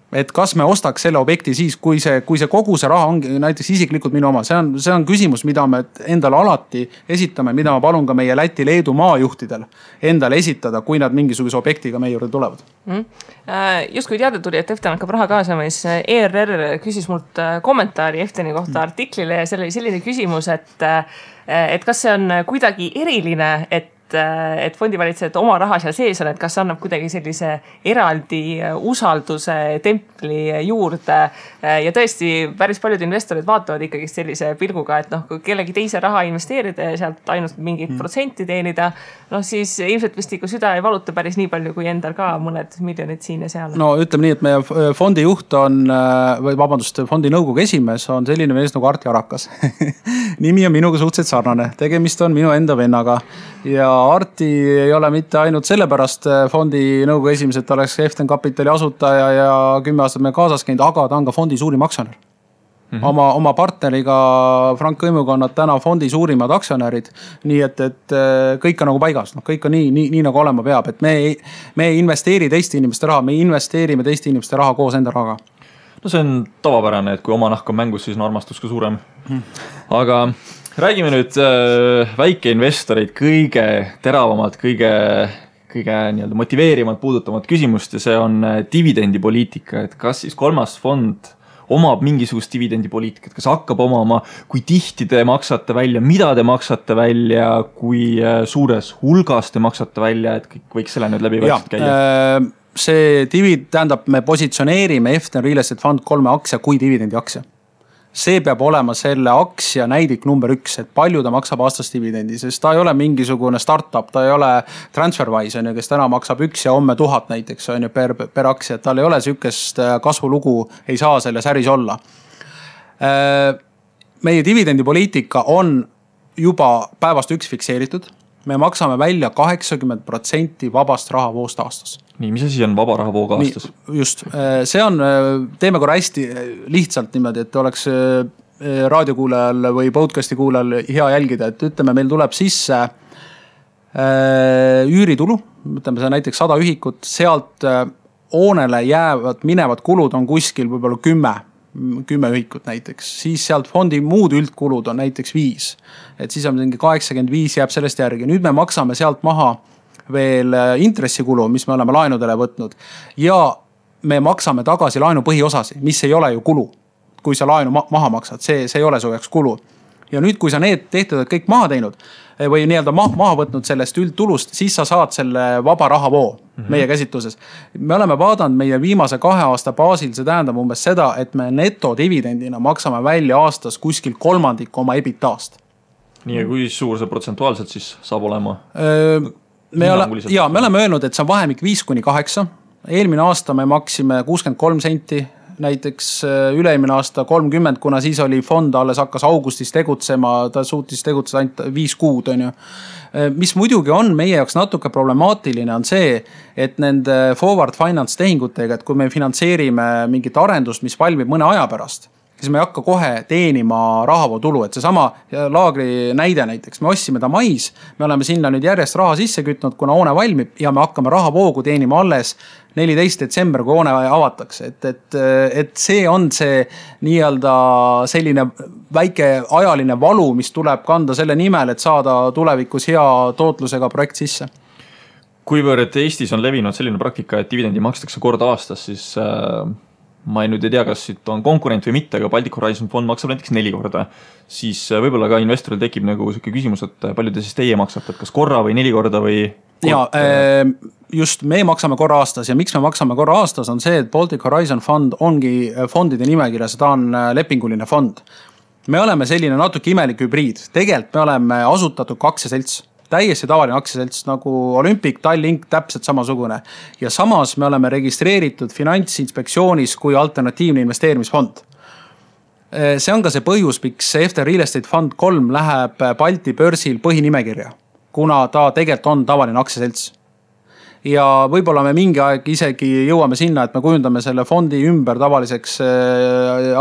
Speaker 3: Et kas me ostaks selle objekti siis, kui see kogu see raha on näiteks isiklikult minu oma. See on küsimus, mida me endale alati esitame, mida ma palun ka meie Läti, Leedu maajuhtidel endale esitada, kui nad mingisuguse objektiga meie juurde tulevad.
Speaker 1: Just kui teada tuli, et Eften hakkab raha kaasama, siis ERR küsis mult kommentaari Efteni kohta artiklile ja see oli selline küsimus, et kas see on kuidagi eriline, et fondivalitsevad oma raha seal sees on, et kas annab kuidagi sellise eraldi usalduse templi juurde ja tõesti päris paljud investorid vaatavad ikkagi sellise pilguga, et noh, kui kellegi teise raha investeerida ja sealt ainult mingit protsenti teenida, noh siis ilmselt vist ikka süda ei valuta päris nii palju kui endal ka mõned miljonid siin ja seal.
Speaker 3: No ütleme nii, et meie fondi juht on, või vabandust, fondi nõukogu esimees on selline mees nagu Arti Arakas. Nimi on minuga suhteliselt sarnane, tegemist on minu enda vennaga ja Arti ei ole mitte ainult sellepärast fondi nõukogu esimees, et ta oleks Eften Kapitali asutaja ja 10 aastat me kaasas käinud, aga ta on ka fondi suurim aktsionär. Oma partneriga Frank Õimuga on nad täna fondi suurimad aktsionärid, nii et kõik on nagu paigas, kõik on nii nagu olema peab, et me ei investeeri teiste inimeste raha, me investeerime teiste inimeste raha koos enda rahaga.
Speaker 2: No see on tavapärane, et kui oma nahk on mängus, siis on armastus ka suurem. Aga räägime nüüd väikeinvestoreid kõige teravamalt, kõige motiveerimalt puudutavat küsimust ja see on dividendipoliitika, et kas siis kolmas fond omab mingisugust dividendipoliitikat, kas hakkab omama, kui tihti te maksate välja, mida te maksate välja, kui suures hulgas te maksate välja, et kõik võiks selle nüüd läbi vaikselt käia?
Speaker 3: See tähendab, me positsioneerime Eften Real Estate Fund 3 aktsia kui dividendi aktsia. See peab olema selle aktsia näidik number 1, et palju ta maksab aastas dividendi, sest ta ei ole mingisugune startup, ta ei ole TransferWise, kes täna maksab 1 ja homme 1000 näiteks on ju per aktsia, et tal ei ole sükest kasvulugu, ei saa selles äris olla. Meie dividendipoliitika on juba päevast 1 fikseeritud. Me maksame välja 80% vabast rahavoost aastas.
Speaker 2: Nii, mis asi on vaba rahavoog aastas?
Speaker 3: Just, see on, teeme korra hästi lihtsalt niimoodi, et oleks raadiokuulajal või podcasti kuulajal hea jälgida, et ütleme, meil tuleb sisse üüritulu, ütleme see näiteks 100 ühikut, sealt hoonele minevad kulud on kuskil võib-olla 10 ühikut näiteks, siis sealt fondi muud üldkulud on näiteks 5. Et siis on mingi 85 jääb sellest järgi. Nüüd me maksame sealt maha veel intressikulu, mis me oleme laenudele võtnud ja me maksame tagasi laenu põhiosasi, mis ei ole ju kulu. Kui sa laenu maha maksad, see ei ole su jaoks kulu. Ja nüüd, kui sa need tehtud kõik maha teinud, või nii-öelda maha võtnud sellest üldtulust, siis sa saad selle vaba rahavoo meie käsitluses. Me oleme vaadanud meie viimase 2 aasta baasil, see tähendab umbes seda, et me netodividendina maksame välja aastas kuskil 1/3 oma EBITDA-st.
Speaker 2: Nii, ja kui suur see protsentuaalselt siis saab olema?
Speaker 3: Me oleme öelnud, et see on vahemik 5-8. Eelmine aasta me maksime 63 senti, näiteks üle-eelmine aasta 30, kuna siis oli fond alles hakkas augustis tegutsema, ta suutis tegutseda ainult 5 kuud, on ju. Mis muidugi on meie jaoks natuke problemaatiline on see, et nende forward finance tehingutega, et kui me finantseerime mingit arendust, mis valmib mõne aja pärast, siis me ei hakka kohe teenima rahavootulu, et see sama laagri näide näiteks, me ostsime ta mais, me oleme sinna nüüd järjest raha sisse kütnud, kuna hoone valmib ja me hakkame rahavoogu teenima alles 14. detsember, kui hoone avatakse, et see on see nii-öelda selline väike ajaline valu, mis tuleb kanda selle nimel, et saada tulevikus hea tootlusega projekt sisse.
Speaker 2: Kuivõrd Eestis on levinud selline praktika, et dividendi makstakse kord aastas, siis ma nüüd ei tea, kas siit on konkurent või mitte, aga Baltic Horizon fond maksab näiteks 4 korda. Siis võib-olla ka investoril tekib nagu selline küsimus, et palju te siis teie maksate, et kas korra või 4 korda või...
Speaker 3: Ja, just me maksame korra aastas ja miks me maksame korra aastas on see, et Baltic Horizon fond ongi fondide nimekirjas, ta on lepinguline fond. Me oleme selline natuke imelik hübriid. Tegelikult me oleme asutatud aktsiaselts. Täiesti tavaline aktsiaselts nagu Olympic, Tallink, täpselt samasugune. Ja samas me oleme registreeritud Finantsinspektsioonis kui alternatiivne investeerimisfond. See on ka see põhjus, miks FT Real Estate Fund 3 läheb Balti börsil põhinimekirja, kuna ta tegelikult on tavaline aktsiaselts. Ja võib-olla me mingi aeg isegi jõuame sinna, et me kujundame selle fondi ümber tavaliseks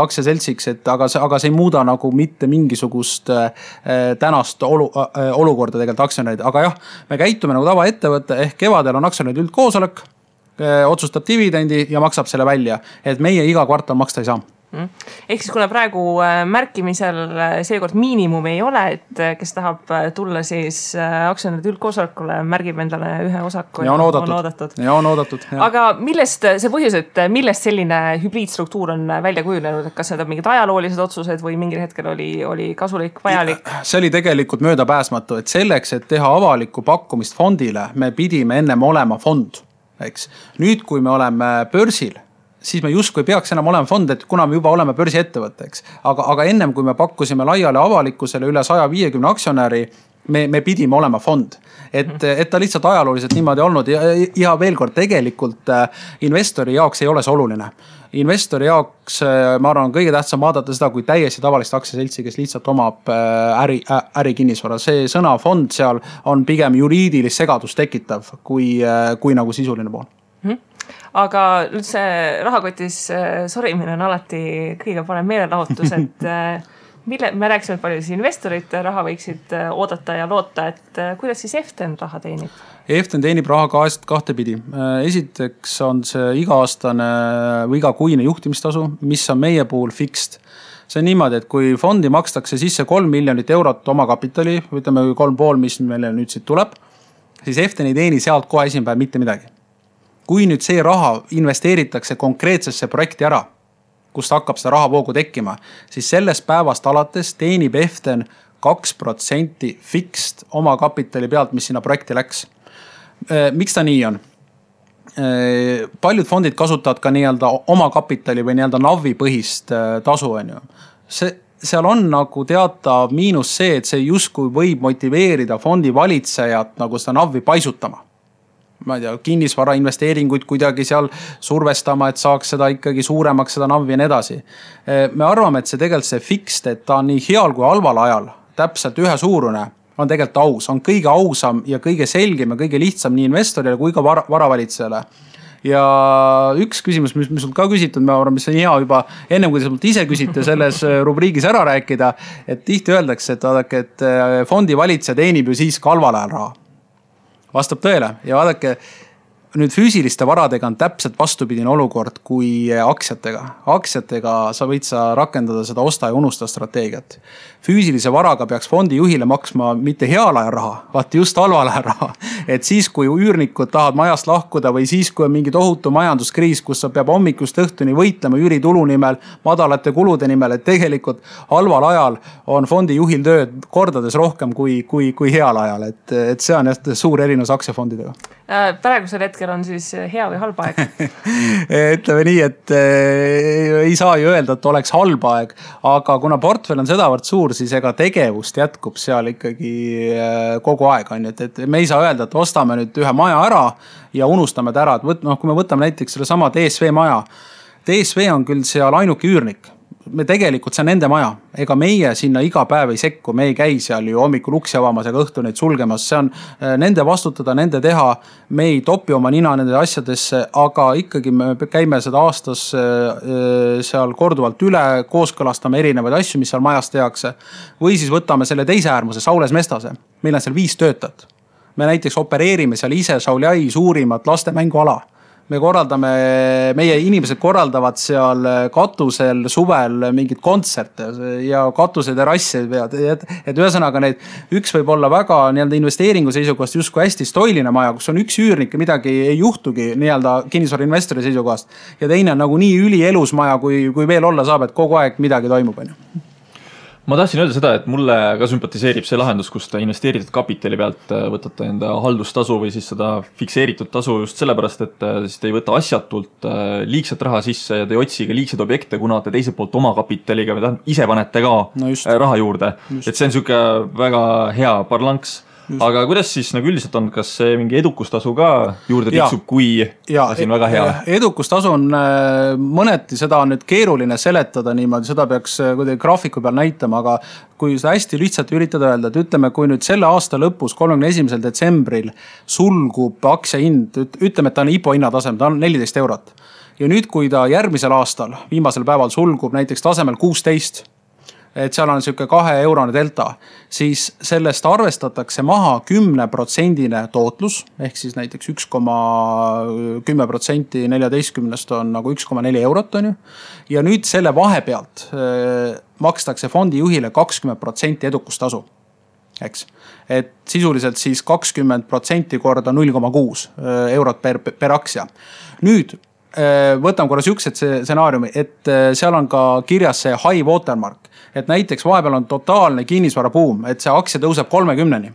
Speaker 3: aktsiaseltsiks, aga see ei muuda nagu mitte mingisugust tänast olukorda tegelikult aktsionärid. Aga jah, me käitume nagu tavaettevõtte, ehk kevadel on aktsionärid üldkoosolek, otsustab dividendi ja maksab selle välja, et meie iga kvartal maksta ei saa.
Speaker 1: Ehk siis kuna praegu märkimisel seekord miinimum ei ole, et kes tahab tulla siis aktsionäride üldkoosolekule, märgib endale ühe osaku
Speaker 3: ja on oodatud. Ja on oodatud.
Speaker 1: Aga millest see põhjus, et millest selline hübriidstruktuur on välja kujunenud, et kas need on mingid ajaloolised otsused või mingil hetkel oli kasulik, vajalik?
Speaker 3: See oli tegelikult möödapääsmatu, et selleks, et teha avalikku pakkumist fondile, me pidime ennem olema fond. Eks. Nüüd, kui me oleme börsil, siis me justkui peaks enam olema fond, et kuna me juba oleme börsiettevõtteks. Aga ennem kui me pakkusime laiale avalikkusele üle 150 aktsionäri, me pidime olema fond. Et ta lihtsalt ajalooliselt niimoodi olnud ja veel kord tegelikult investori jaoks ei ole see oluline. Investori jaoks, ma arvan, on kõige tähtsam vaadata seda kui täiesti tavalist aktsiaseltsi, kes lihtsalt omab äri kinnisvara. See sõna fond seal on pigem juriidilist segadust tekitav kui nagu sisuline pool.
Speaker 1: Aga nüüd see rahakotis sorimine on alati kõige parem meelelahutus, et me rääksime, et palju siis investorid raha võiksid oodata ja loota, et kuidas siis EFTEN raha teenib?
Speaker 3: EFTEN teenib raha kahtepidi. Esiteks on see iga-aastane või igakuine juhtimistasu, mis on meie puhul fixed. See on niimoodi, et kui fondi makstakse sisse 3 miljonit eurot oma kapitali, ütleme 3,5, mis meile nüüd siit tuleb, siis EFTEN ei teeni sealt kohe esimpäev mitte midagi. Kui nüüd see raha investeeritakse konkreetsesse projekti ära, kust hakkab seda rahavoogu tekkima, siis sellest päevast alates teenib EFTEN 2% fixed oma kapitali pealt, mis sinna projekti läks. Miks ta nii on? Paljud fondid kasutavad ka nii-öelda oma kapitali või nii-öelda navi põhist tasu. Seal on nagu teatav miinus see, et see justkui võib motiveerida fondi valitsejat nagu seda navi paisutama. Ma ei tea, kinnisvara investeeringuid kuidagi seal survestama, et saaks seda ikkagi suuremaks, seda navi ja nii edasi. Me arvame, et see tegelikult see fixed, et ta on nii heal kui halval ajal, täpselt ühe suurune, on tegelikult aus, on kõige ausam ja kõige selgem ja kõige lihtsam nii investorile kui ka varavalitsejale. Ja üks küsimus, mis sul ka küsitud, ma arvan, mis on hea juba ennem, kui te mult ise küsite selles rubriigis ära rääkida, et tihti öeldakse, et fondi valitseja teenib ju siis ka halval ajal raha. Vastab tõele ja vaadake, nüüd füüsiliste varadega on täpselt vastupidine olukord kui aktsiatega. Aktsiatega sa võid rakendada seda osta ja unusta strateegiat. Füüsilise varaga peaks fondi juhile maksma mitte heal ajal raha, vaat just halval ajal raha. Et siis, kui üürnikud tahavad majast lahkuda või siis, kui on mingi tohutu majanduskriis, kus sa peab hommikust õhtuni võitlema üüritulu nimel, madalate kulude nimel, et tegelikult halval ajal on fondi juhil tööd kordades rohkem kui heal ajal. Et see on suur erinevus aktsiafondidega.
Speaker 1: Praegusel hetkel on siis hea või halb aeg?
Speaker 3: Ütleme nii, et ei saa ju öelda, et oleks halb aeg, aga kuna portfell on sedavõrd suur, siis ega tegevust jätkub seal ikkagi kogu aeg. Et me ei saa öelda, et ostame nüüd ühe maja ära ja unustame ta ära. Kui me võtame näiteks selle sama DSV maja, DSV on küll seal ainuke üürnik. Me tegelikult see on nende maja. Ega meie sinna iga päev ei sekku, me ei käi seal ju hommikul uksi avamas ega õhtu neid sulgemas. See on nende vastutada, nende teha. Me ei topi oma nina nende asjadesse, aga ikkagi me käime seda aastas seal korduvalt üle, kooskõlastame erinevaid asju, mis seal majas tehakse. Või siis võtame selle teise äärmuse, Saules Mestase. Meil on seal 5 töötajat. Me näiteks opereerime seal ise Šauliai suurimat lastemänguala. Meie inimesed korraldavad seal katusel suvel mingid kontserte ja katuse terassi pead. Et ühesõnaga üks võib olla väga investeeringu seisukohast justkui hästi stoiline maja, kus on üks üürnik ja midagi ei juhtugi kinnisvara investori seisukohast. Ja teine on nagu nii ülielus maja, kui veel olla saab, et kogu aeg midagi toimub.
Speaker 2: Ma tahtsin öelda seda, et mulle ka sümpatiseerib see lahendus, kus te investeeritud kapitali pealt võtate enda haldustasu või siis seda fikseeritud tasu just sellepärast, et siis te ei võta asjatult liigset raha sisse ja te ei otsi ka liigseid objekte, kuna te teiselt poolt oma kapitaliga või ise panete ka raha juurde. Et see on siuke väga hea parlanks. Aga kuidas siis nagu üldiselt on, kas see mingi edukustasu ka juurde tiksub, kui asi on väga hea?
Speaker 3: Edukustasu on mõneti, seda on nüüd keeruline seletada niimoodi, seda peaks kuidagi graafiku peal näitama, aga kui seda hästi lihtsalt üritada öelda, et ütleme, kui nüüd selle aasta lõpus 31. detsembril sulgub aktsia hind, ütleme, et ta on IPO hinnatasem, ta on 14 eurot. Ja nüüd, kui ta järgmisel aastal, viimasel päeval sulgub näiteks tasemel 16, et seal on siuke 2 eurone delta, siis sellest arvestatakse maha 10% tootlus, ehk siis näiteks 1,10% 14 on nagu 1,4 eurot on ju. Ja nüüd selle vahepealt makstakse fondi juhile 20% edukustasu. Eks. Et sisuliselt siis 20% korda 0,6 eurot per aktsia. Nüüd võtame korra siuksed stsenaariumi, et seal on ka kirjas see high watermark. Et näiteks vahepeal on totaalne kinnisvara buum, et see aktsia tõuseb 30-ni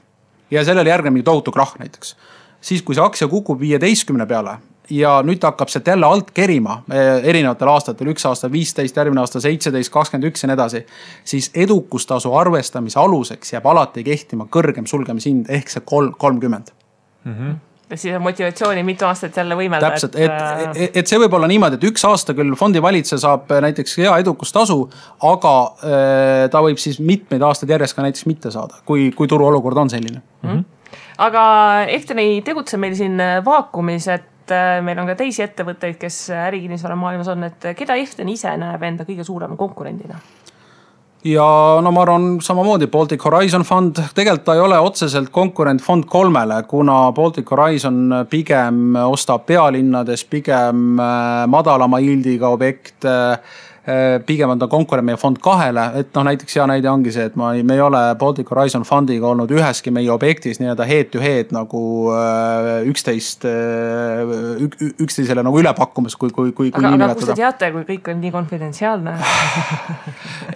Speaker 3: ja sellele järgneb mingi tohutu krahh näiteks. Siis kui see aktsia kukub 15 peale ja nüüd hakkab see jälle alt kerima erinevatel aastatel, üks aasta 15, järgmine aasta 17, 21 ja nii edasi, siis edukustasu arvestamise aluseks jääb alati kehtima kõrgem sulgemishind ehk see 30.
Speaker 1: Ja siis on motivatsiooni mitu aastat jälle võimelda.
Speaker 3: Täpselt, et see võib olla niimoodi, et üks aasta küll fondi valitse saab näiteks hea edukustasu, aga ta võib siis mitmeid aastaid järjest ka näiteks mitte saada, kui turu olukord on selline.
Speaker 1: Aga Eften ei tegutse meil siin vaakumis, et meil on ka teisi ettevõtteid, kes ärikinnisvara maailmas on, et keda Eften ise näeb enda kõige suurema konkurendina?
Speaker 3: Ja no ma arvan samamoodi Baltic Horizon Fund, tegelikult ta ei ole otseselt konkurent Fond 3-le, kuna Baltic Horizon pigem ostab pealinnades, pigem madalama yieldiga objekt, pigem on ta konkurent meie Fond 2-le, et näiteks hea näide ongi see, et me ei ole Baltic Horizon Fundiga olnud üheski meie objektis nii-öelda head to head nagu üksteisele nagu üle pakkumas, kui
Speaker 1: aga kus te teate, kui kõik on nii konfidentsiaalne?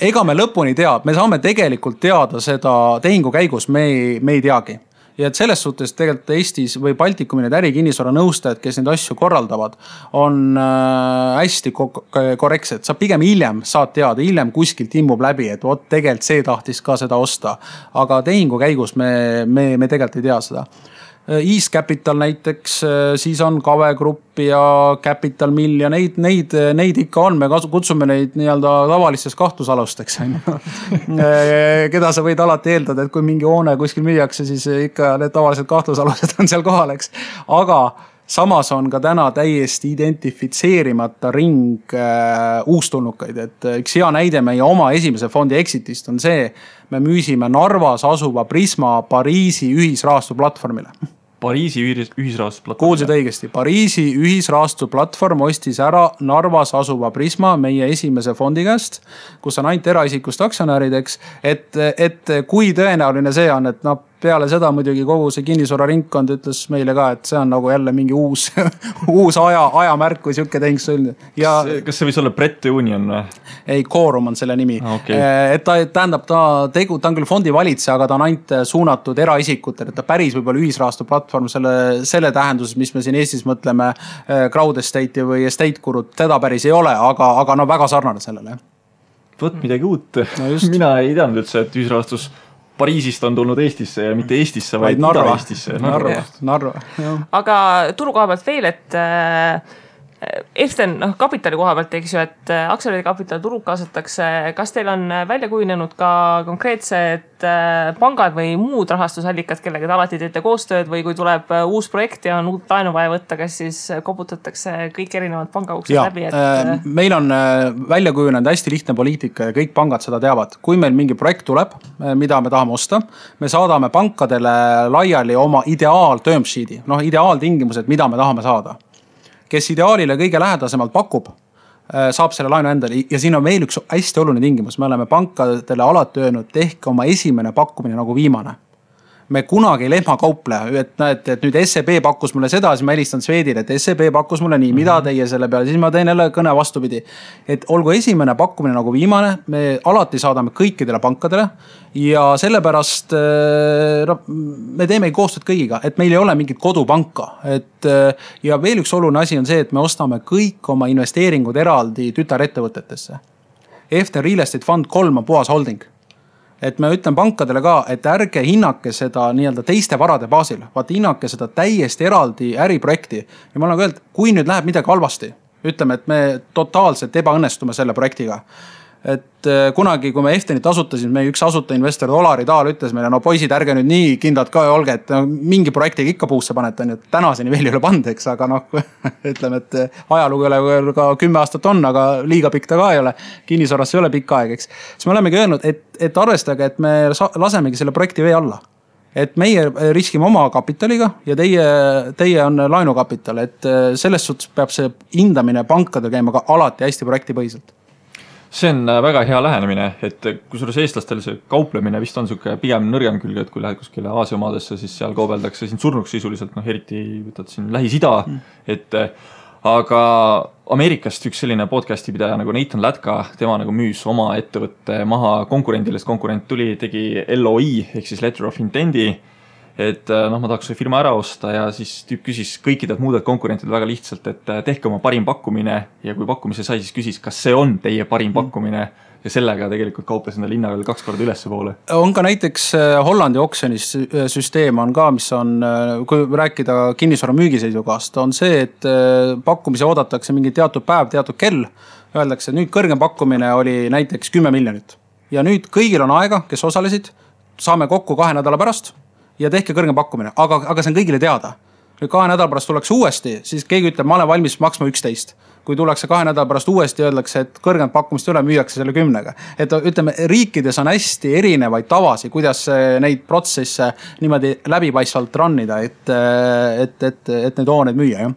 Speaker 3: Ega me lõpuni teab, me saame tegelikult teada seda tehingu käigus, me ei teagi. Ja et selles suhtes tegelikult Eestis või Baltikumi need ärikinnisvara nõustajad, kes neid asju korraldavad, on hästi korrektsed. Sa pigem hiljem saad teada, hiljem kuskilt immub läbi, et tegelikult see tahtis ka seda osta. Aga tehingu käigus me tegelikult ei tea seda. East Capital näiteks, siis on Kave Grupp ja Capital Mill ja neid ikka on, me kutsume neid nii-öelda tavalisteks kahtlusalusteks. Keda sa võid alati eeldada, et kui mingi hoone kuskil müüakse, siis ikka need tavalised kahtlusalused on seal kohal, eks. Aga samas on ka täna täiesti identifitseerimata ring uustulnukaid, et üks hea näide meie oma esimese fondi exitist on see, me müüsime Narvas asuva Prisma Pariisi ühisrahastu platvormile.
Speaker 2: Pariisi ühisrahastusplatvorm.
Speaker 3: Kuulsid õigesti, Pariisi ühisrahastuplatvorm ostis ära Narvas asuva Prisma meie esimese fondi käest, kus on ainult eraisikust aktsionärideks, et kui tõenäoline see on, et peale seda muidugi kogu see kinnisvara ringkond ütles meile ka, et see on nagu jälle mingi uus ajamärk või siuke tehing sõlmida.
Speaker 2: Kas see võis olla Brett Union või?
Speaker 3: Ei, Quorum on selle nimi.
Speaker 2: Okay.
Speaker 3: Et ta tähendab, ta on küll fondi valitseja, aga ta on ainult suunatud eraisikutele, et ta päris võib-olla ühisrahastuplatvorm selle tähenduses, mis me siin Eestis mõtleme crowd estate'i või estate kurud, teda päris ei ole, aga väga sarnane sellele.
Speaker 2: Võt midagi uut. No mina ei teadnud üldse, et ühisrahastus Pariisist on tulnud Eestisse ja mitte Eestisse, vaid Ida-Eestisse.
Speaker 3: Narva.
Speaker 1: Aga turu koha pealt veel, et Eften kapitali koha pealt, eks ju, et aktsionäride kapital turul kaasatakse. Kas teil on välja kujunenud ka konkreetsed pangad või muud rahastusallikad, kellega te alati teete koostööd või kui tuleb uus projekt ja on uut laenu vaja võtta, kas siis koputatakse kõik erinevad pangauksed läbi?
Speaker 3: Meil on välja kujunenud hästi lihtne poliitika ja kõik pangad seda teavad. Kui meil mingi projekt tuleb, mida me tahame osta, me saadame pankadele laiali oma term sheet'i, ideaaltingimused, mida me tahame saada. Kes ideaalile kõige lähedasemalt pakub, saab selle laenu endale ja siin on veel üks hästi oluline tingimus. Me oleme pankadele alati öelnud, tehke oma esimene pakkumine nagu viimane. Me kunagi ei lehmakauple, et nüüd SEB pakkus mulle seda, siis ma helistan Swedile, et SEB pakkus mulle nii, mida teie selle peale, siis ma teen jälle kõne vastupidi. Et olgu esimene pakkumine nagu viimane, me alati saadame kõikidele pankadele ja sellepärast me teeme koostööd kõigiga, et meil ei ole mingit kodupanka. Ja veel üks oluline asi on see, et me ostame kõik oma investeeringud eraldi tütarettevõtetesse. Eften Real Estate Fund 3 on puhas holding. Et me ütlen pankadele ka, et ärge hinnake seda nii-öelda teiste varade baasil, vaat hinnake seda täiesti eraldi äriprojekti. Ja ma olen öelnud, kui nüüd läheb midagi halvasti, ütleme, et me totaalselt ebaõnnestume selle projektiga. Et kunagi, kui me Eftenit asutasime, meie üks asutainvestor Olari Taal ütles meile, no poisid, ärge nüüd nii kindlad ka olge, et mingi projektiga ikka puusse panete, on ju, tänaseni veel ei ole pandeks, aga ütleme, et ajalugu ei ole ka 10 aastat on, aga liiga pikk ta ka ei ole, kinnisvaras ei ole pikk aeg, eks. Siis me olemegi öelnud, et arvestage, et me lasemegi selle projekti vee alla. Et meie riskime oma kapitaliga ja teie on laenukapital, et selles suhtes peab see hindamine pankadel käima ka alati hästi projektipõhiselt.
Speaker 2: See on väga hea lähenemine, et kusjuures eestlastel see kauplemine vist on siuke pigem nõrgem külge, et kui lähed kuskile Aasia maadesse, siis seal kaubeldakse siin surnuks sisuliselt, eriti võtad siin Lähis-Ida, et aga Ameerikast üks selline podcasti pidaja nagu Nathan Latka, tema nagu müüs oma ettevõtte maha konkurendile, sest konkurent tuli, tegi LOI ehk siis Letter of Intendi, et ma tahaks see firma ära osta ja siis tüüp küsis kõikidelt muudelt konkurentidelt väga lihtsalt, et tehke oma parim pakkumine ja kui pakkumise sai, siis küsis, kas see on teie parim pakkumine ja sellega tegelikult kauples enda linna veel 2 korda ülesse poole.
Speaker 3: On ka näiteks Hollandi oksjonis süsteem on ka, mis on, kui rääkida kinnisvara müügiseisukohast, on see, et pakkumise oodatakse mingi teatud päev, teatud kell, öeldakse, et nüüd kõrgem pakkumine oli näiteks 10 miljonit ja nüüd kõigil on aega, kes osalesid, saame kokku 2 nädala pärast ja tehke kõrgem pakkumine, aga see on kõigile teada. Nüüd 2 nädala pärast tullakse uuesti, siis keegi ütleb, ma olen valmis maksma 11. Kui tullakse 2 nädala pärast uuesti, öeldakse, et kõrgem pakkumist üle müüakse selle 10-ga. Et ütleme, riikides on hästi erinevaid tavasi, kuidas neid protsesse niimoodi läbipaistvalt rannida, et neid hooneid müüa, jah.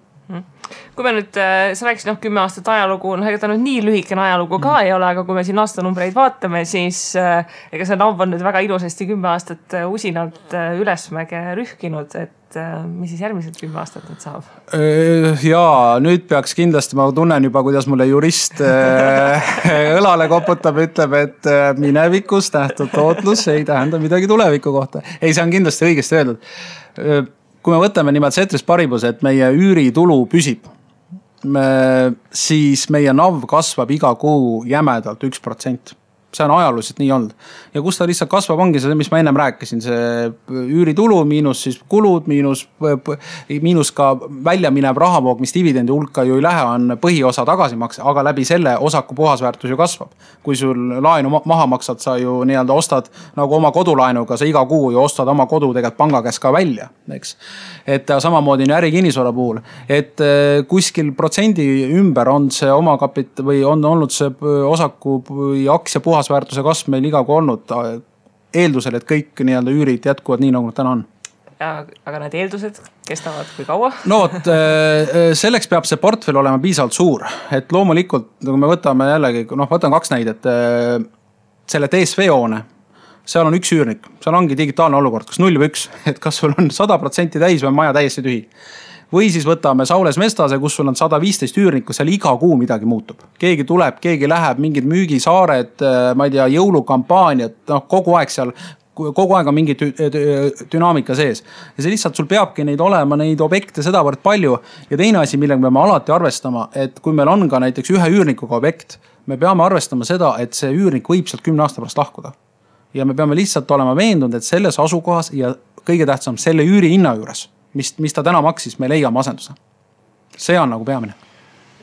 Speaker 1: Kui me nüüd, sa rääkisid 10 aastat ajalugu, ega ta nüüd nii lühikene ajalugu ka ei ole, aga kui me siin aastanumbreid vaatame, siis ega see NAV on nüüd väga ilusasti 10 aastat usinalt ülesmäge rühkinud, et mis siis järgmised 10 aastat nüüd saab?
Speaker 3: Jaa, nüüd peaks kindlasti, ma tunnen juba, kuidas mulle jurist õlale koputab, ütleb, et minevikus nähtud tootlus ei tähenda midagi tuleviku kohta. Ei, see on kindlasti õigesti öeldud. Kui me võtame nimelt Ceteris Paribus, et meie üüritulu püsib, siis meie NAV kasvab iga kuu jämedalt 1%. See on ajalooliselt nii olnud. Ja kus ta lihtsalt kasvab, ongi see, mis ma ennem rääkisin, see üüritulu miinus siis kulud, miinus ka välja minev rahavoog, mis dividendi hulka ju ei lähe, on põhiosa tagasimakse, aga läbi selle osaku puhasväärtus ju kasvab. Kui sul laenu maha maksad, sa ju nii-öelda ostad nagu oma kodulaenuga, sa iga kuu ju ostad oma kodu tegelikult panga käest ka välja, eks. Et samamoodi on äri kinnisvara puhul, et kuskil protsendi ümber on see oma kapit või on olnud see osaku või aktsia puhasväärtuse kasv meil iga kui olnud eeldusel, et kõik nii-öelda üürid jätkuvad nii, nagu nad täna on.
Speaker 1: aga need eeldused kestavad kui kaua?
Speaker 3: No vot, selleks peab see portfell olema piisavalt suur, et loomulikult, kui me võtame jällegi, võtame 2 näidet, selle DSV hoone, seal on üks üürnik, seal ongi digitaalne olukord, kas 0 või 1, et kas sul on 100% täis või maja täiesti tühi. Või siis võtame Saules Mestase, kus sul on 115 üürnikku, seal iga kuu midagi muutub. Keegi tuleb, keegi läheb, mingid müügisaared, ma ei tea, jõulukampaaniad, kogu aeg seal, kogu aeg on mingi dünaamika sees. Ja see lihtsalt sul peabki neid olema, neid objekte sedavõrd palju. Ja teine asi, millega me peame alati arvestama, et kui meil on ka näiteks ühe üürnikuga objekt, me peame arvestama seda, et see üürnik võib sealt 10 aasta pärast lahkuda. Ja me peame lihtsalt olema veendunud, et selles asukohas ja kõige tähtsam selle üüri hinna juures, mis ta täna maksis, me leiame asenduse. See on nagu peamine.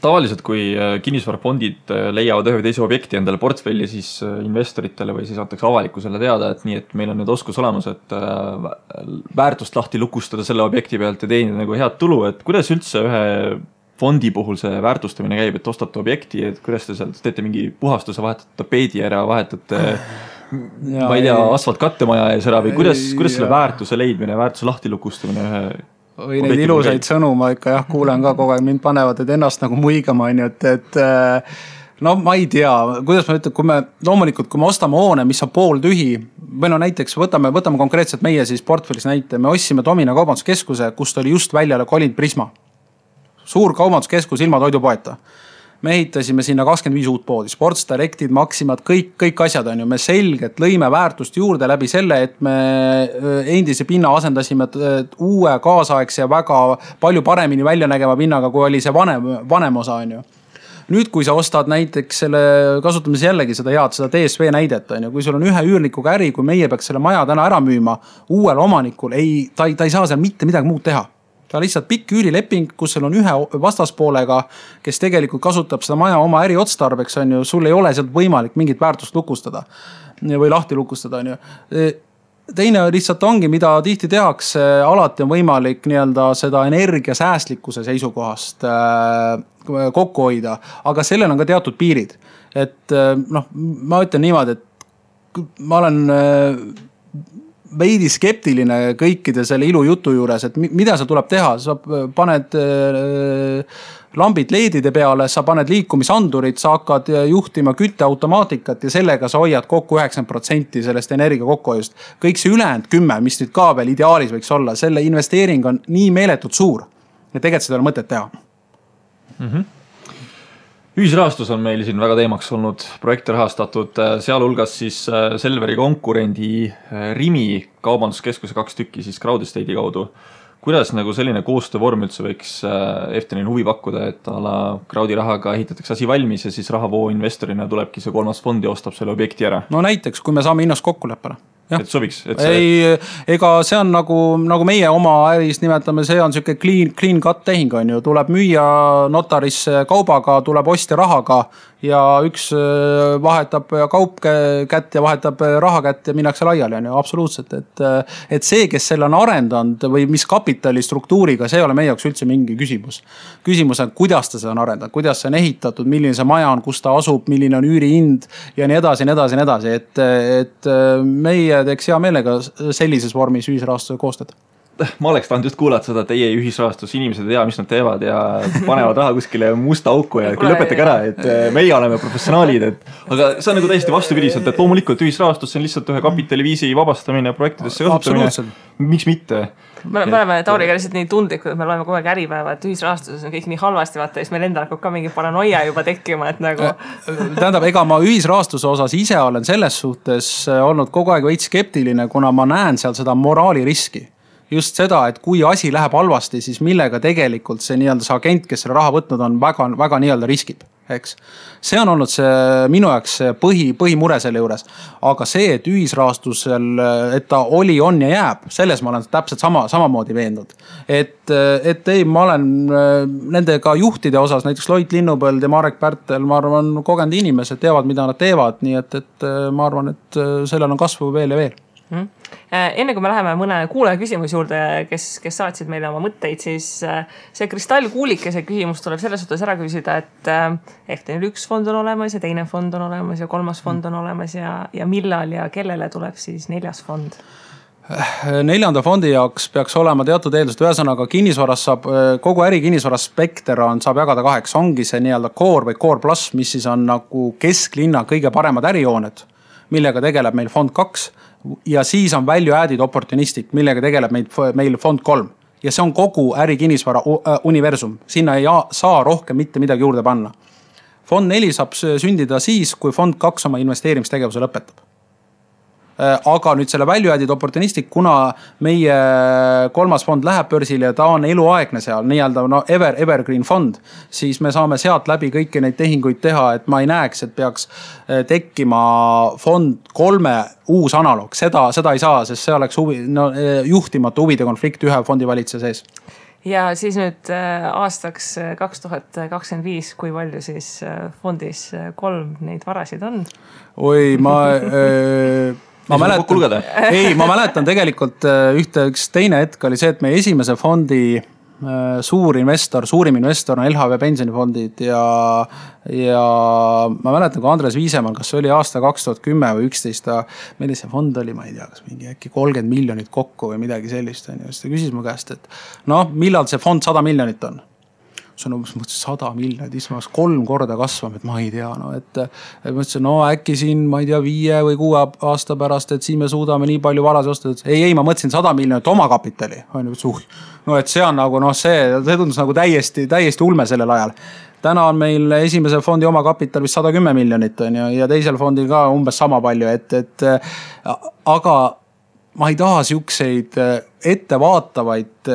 Speaker 2: Tavaliselt, kui kinnisvarafondid leiavad ühe või teise objekti endale portfelli, siis investoritele või siis antakse avalikkusele teada, et nii, et meil on nüüd oskus olemas, et väärtust lahti lukustada selle objekti pealt ja teenida nagu head tulu, et kuidas üldse ühe fondi puhul see väärtustamine käib, et ostate objekti, et kuidas te seal teete mingi puhastuse, vahetate tapeedi ära, vahetate ma ei tea, asfalt kattemaja ees ära või kuidas selle väärtuse leidmine, väärtuse lahti lukustamine ühe
Speaker 3: või neid ilusaid sõnu ma ikka kuulen ka kogu aeg, mind panevad, et ennast nagu muigama, et no ma ei tea, kuidas ma ütlen, loomulikult, kui me ostame hoone, mis on pool tühi, või no näiteks võtame konkreetselt meie siis portfellis näite, me ostsime Domina kaubanduskeskuse, kust oli just väljale kolinud Prisma. Suur kaubanduskeskus ilma toidupoeta. Me ehitasime sinna 25 uut poodi, Sports Directid, Maximad, kõik asjad on ju. Me selgelt lõime väärtust juurde läbi selle, et me endise pinna asendasime uue kaasaegse ja väga palju paremini välja nägema pinnaga, kui oli see vanem osa on ju. Nüüd, kui sa ostad näiteks selle, kasutamise jällegi seda DSV näidet on ju, kui sul on ühe üürnikuga äri, kui meie peaks selle maja täna ära müüma uuel omanikul, ta ei saa seal mitte midagi muud teha. Ta lihtsalt pikk üürileping, kus sul on ühe vastaspoolega, kes tegelikult kasutab seda maja oma äri otstarbeks, on ju, sul ei ole sealt võimalik mingit väärtust lukustada või lahti lukustada. On ju. Teine lihtsalt ongi, mida tihti tehakse, alati on võimalik seda energiasäästlikkuse seisukohast kokku hoida, aga sellel on ka teatud piirid. Et ma ütlen niimoodi, et ma olen veidi skeptiline kõikide selle ilujutu juures, et mida sa tuleb teha, sa paned lambid leedide peale, sa paned liikumisandurid, sa hakkad juhtima kütteautomaatikat ja sellega sa hoiad kokku 90% sellest energia kokkuhoiust. Kõik see ülejäänud 10, mis nüüd ka veel ideaalis võiks olla, selle investeering on nii meeletult suur, et tegelikult seda on mõtet teha.
Speaker 2: Ühisrahastus on meil siin väga teemaks olnud, projekte rahastatud, sealhulgas siis Selveri konkurendi Rimi kaubanduskeskuse 2 tükki siis Crowd Estate'i kaudu. Kuidas nagu selline koostöövorm üldse võiks Eftenil huvi pakkuda, et Crowdi rahaga ehitatakse asi valmis ja siis rahavoo investorina tulebki see 3. fond ja ostab selle objekti ära?
Speaker 3: No näiteks, kui me saame hinnast kokkuleppele.
Speaker 2: Et sobiks?
Speaker 3: Ega see on nagu meie oma äris nimetame, see on selline clean cut tehing on ju, tuleb müüa notarisse kaubaga, tuleb ostja rahaga ja üks vahetab kaup kätt ja vahetab raha kätt ja minnakse laiali on ju, absoluutselt. Et see, kes selle on arendanud või mis kapitali struktuuriga, see ei ole meie jaoks üldse mingi küsimus. Küsimus on, kuidas ta seda on arendanud, kuidas see on ehitatud, milline see maja on, kus ta asub, milline on üürihind ja nii edasi. Et meie teeks hea meelega sellises vormis ühisrahastuse koostada.
Speaker 2: Ma oleks tahtnud just kuulata seda teie ühisrahastus, inimesed ei tea, mis nad teevad ja panevad raha kuskile musta auku ja lõpetage ära, et meie oleme professionaalid. Aga see on nagu täiesti vastupidiselt, et loomulikult ühisrahastus on lihtsalt ühe kapitaliviisi vabastamine projektidesse kasutamine. Miks mitte?
Speaker 1: Me oleme Tauriga lihtsalt nii tundlikud, et me loeme kogu aeg Äripäeva, et ühisrahastuses on kõik nii halvasti, vaata, siis meil endal hakkab ka mingi paranoia juba tekkima, et nagu...
Speaker 3: Tähendab, ega ma ühisrahastuse osas ise olen selles suhtes olnud kogu aeg veits skeptiline, kuna ma näen seal seda moraaliriski. Just seda, et kui asi läheb halvasti, siis millega tegelikult see agent, kes selle raha võtnud on, väga riskib. Eks. See on olnud see minu jaoks põhimure selle juures. Aga see, et ühisrahastusel, et ta oli, on ja jääb, selles ma olen täpselt samamoodi veendunud. Et ei, ma olen nendega juhtide osas, näiteks Loit Linnupõld ja Marek Pärtel, ma arvan, kogenud inimesed teavad, mida nad teevad, nii et ma arvan, et sellel on kasvu veel ja veel.
Speaker 1: Enne kui me läheme mõne kuulaja küsimus juurde, kes saatsid meile oma mõtteid, siis see kristallkuulikese küsimus tuleb selles suhtes ära küsida, et Eftenil 1 fond on olemas ja teine fond on olemas ja 3. fond on olemas ja millal ja kellele tuleb siis 4. fond?
Speaker 3: 4. fondi jaoks peaks olema teatud eeldused, ühesõnaga kinnisvaras saab, kogu äri kinnisvaras spekter saab jagada 2, ongi see nii-öelda core või core plus, mis siis on nagu kesklinna kõige paremad ärijooned, millega tegeleb meil fond 2 ja siis on value added opportunistic, millega tegeleb meil fond 3 ja see on kogu äri kinnisvara universum, sinna ei saa rohkem mitte midagi juurde panna. Fond 4 saab sündida siis, kui fond 2 oma investeerimistegevuse lõpetab. Aga nüüd selle value added opportunistic, kuna meie 3. fond läheb börsile ja ta on eluaegne seal, nii-öelda evergreen fond, siis me saame sealt läbi kõiki neid tehinguid teha, et ma ei näeks, et peaks tekkima fond 3 uus analoog. Seda ei saa, sest see oleks juhtimatu huvide konflikt ühe fondi valitseja sees.
Speaker 1: Ja siis nüüd aastaks 2025, kui palju siis fondis 3 neid varasid on?
Speaker 3: Oi, ma mäletan tegelikult üks teine hetk oli see, et meie esimese fondi suurim investor on LHV pensionifondid ja ma mäletan, kui Andres Viisemann, kas see oli aasta 2010 või 11, meil see fond oli, ma ei tea, kas mingi äkki 30 miljonit kokku või midagi sellist. Siis ta küsis mu käest, et millal see fond 100 miljonit on? See on umbes 100 miljonit, ismas 3 korda kasvama, et ma ei tea. Et mõtlesin, äkki siin, ma ei tea, 5 või 6 aasta pärast, et siin me suudame nii palju varasi osta. Ei, ma mõtlesin 100 miljonit oma kapitali. Et see on nagu, see tundus nagu täiesti ulme sellel ajal. Täna on meil esimese fondi oma kapital vist 110 miljonit ja teisel fondil ka umbes sama palju. Aga ma ei taha siukseid ettevaatavaid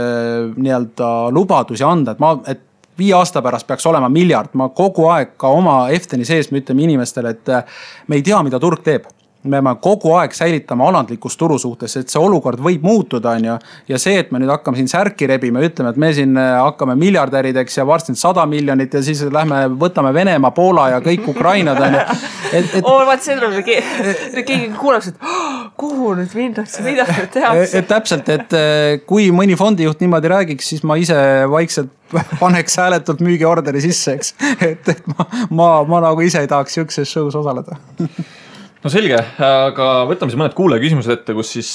Speaker 3: nii-öelda lubadusi anda, et 5 aasta pärast peaks olema miljard. Ma kogu aeg ka oma Efteni sees me ütleme inimestele, et me ei tea, mida turg teeb. Me peame kogu aeg säilitama alandlikus turu suhtes, et see olukord võib muutuda. Ja see, et me nüüd hakkame siin särki rebima, ütleme, et me siin hakkame miljardärideks ja varsti 100 miljonit ja siis võtame Venemaa, Poola ja kõik Ukrainad.
Speaker 1: Vaat see tuleb, keegi kuulaks, et kuhu nüüd minnakse, mida nüüd tehakse.
Speaker 3: Et täpselt, et kui mõni fondijuht niimoodi räägiks, siis ma ise vaikselt paneks hääletult müügiorderi sisse, eks. Et ma nagu ise ei tahaks siukses show's osaleda.
Speaker 2: No selge, aga võtame siis mõned kuulaja küsimused ette, kus siis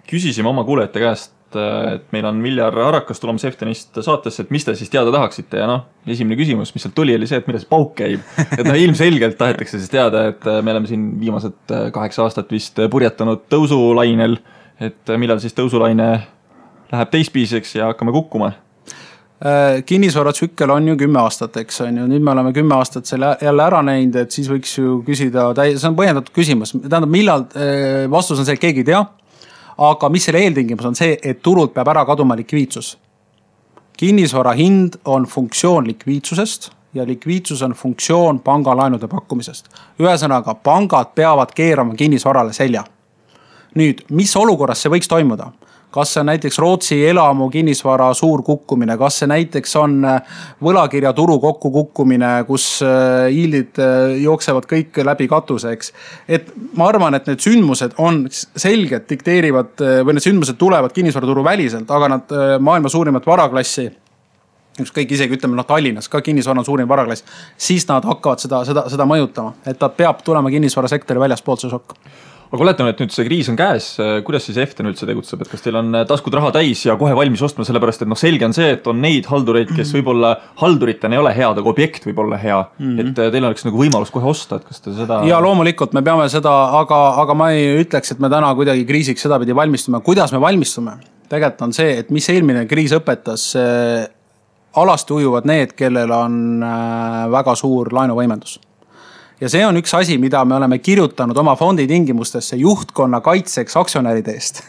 Speaker 2: küsisime oma kuulajate käest, et meil on Viljar Arakas tulemas Eftenist saatesse, et mis te siis teada tahaksite ja esimene küsimus, mis sealt tuli, oli see, et mida see pauk käib. Et ilmselgelt tahetakse siis teada, et me oleme siin viimased 8 aastat vist purjetanud tõusulainel, et millal siis tõusulaine läheb teispiseks ja hakkame kukkuma.
Speaker 3: Kinnisvaratsükkel on ju 10 aastat, eks on ju. Nüüd me oleme 10 aastat selle jälle ära näinud, et siis võiks ju küsida, see on põhjendatud küsimus. Tähendab, millal vastus on see, et keegi ei tea, aga mis selle eeltingimus on see, et turult peab ära kaduma likviidsus. Kinnisvara hind on funktsioon likviidsusest ja likviidsus on funktsioon pangalaenude pakkumisest. Ühesõnaga, pangad peavad keerama kinnisvarale selja. Nüüd, mis olukorras see võiks toimuda? Kas see on näiteks Rootsi elamu kinnisvara suur kukkumine, kas see näiteks on võlakirja turu kokku kukkumine, kus hiildid jooksevad kõik läbi katuseks. Et ma arvan, et need sündmused on selgelt dikteerivad või need sündmused tulevad kinnisvaraturu väliselt, aga nad maailma suurimat varaklassi, kõik isegi ütleme Tallinnas, ka kinnisvara on suurim varaklass, siis nad hakkavad seda mõjutama, et ta peab tulema kinnisvarasektori väljaspoolt see šokk.
Speaker 2: Aga oletame, et nüüd see kriis on käes, kuidas siis Eften üldse tegutseb, et kas teil on taskud raha täis ja kohe valmis ostma, sellepärast et selge on see, et on neid haldureid, kes võib-olla halduritena ei ole head, aga objekt võib olla hea, et teil oleks nagu võimalus kohe osta, et kas te seda...
Speaker 3: Ja loomulikult me peame seda, aga ma ei ütleks, et me täna kuidagi kriisiks seda pidi valmistume. Kuidas me valmistume? Tegelikult on see, et mis eelmine kriis õpetas, alasti ujuvad need, kellel on väga suur laenuvõimendus. Ja see on üks asi, mida me oleme kirjutanud oma fondi tingimustesse juhtkonna kaitseks aktsionäride eest.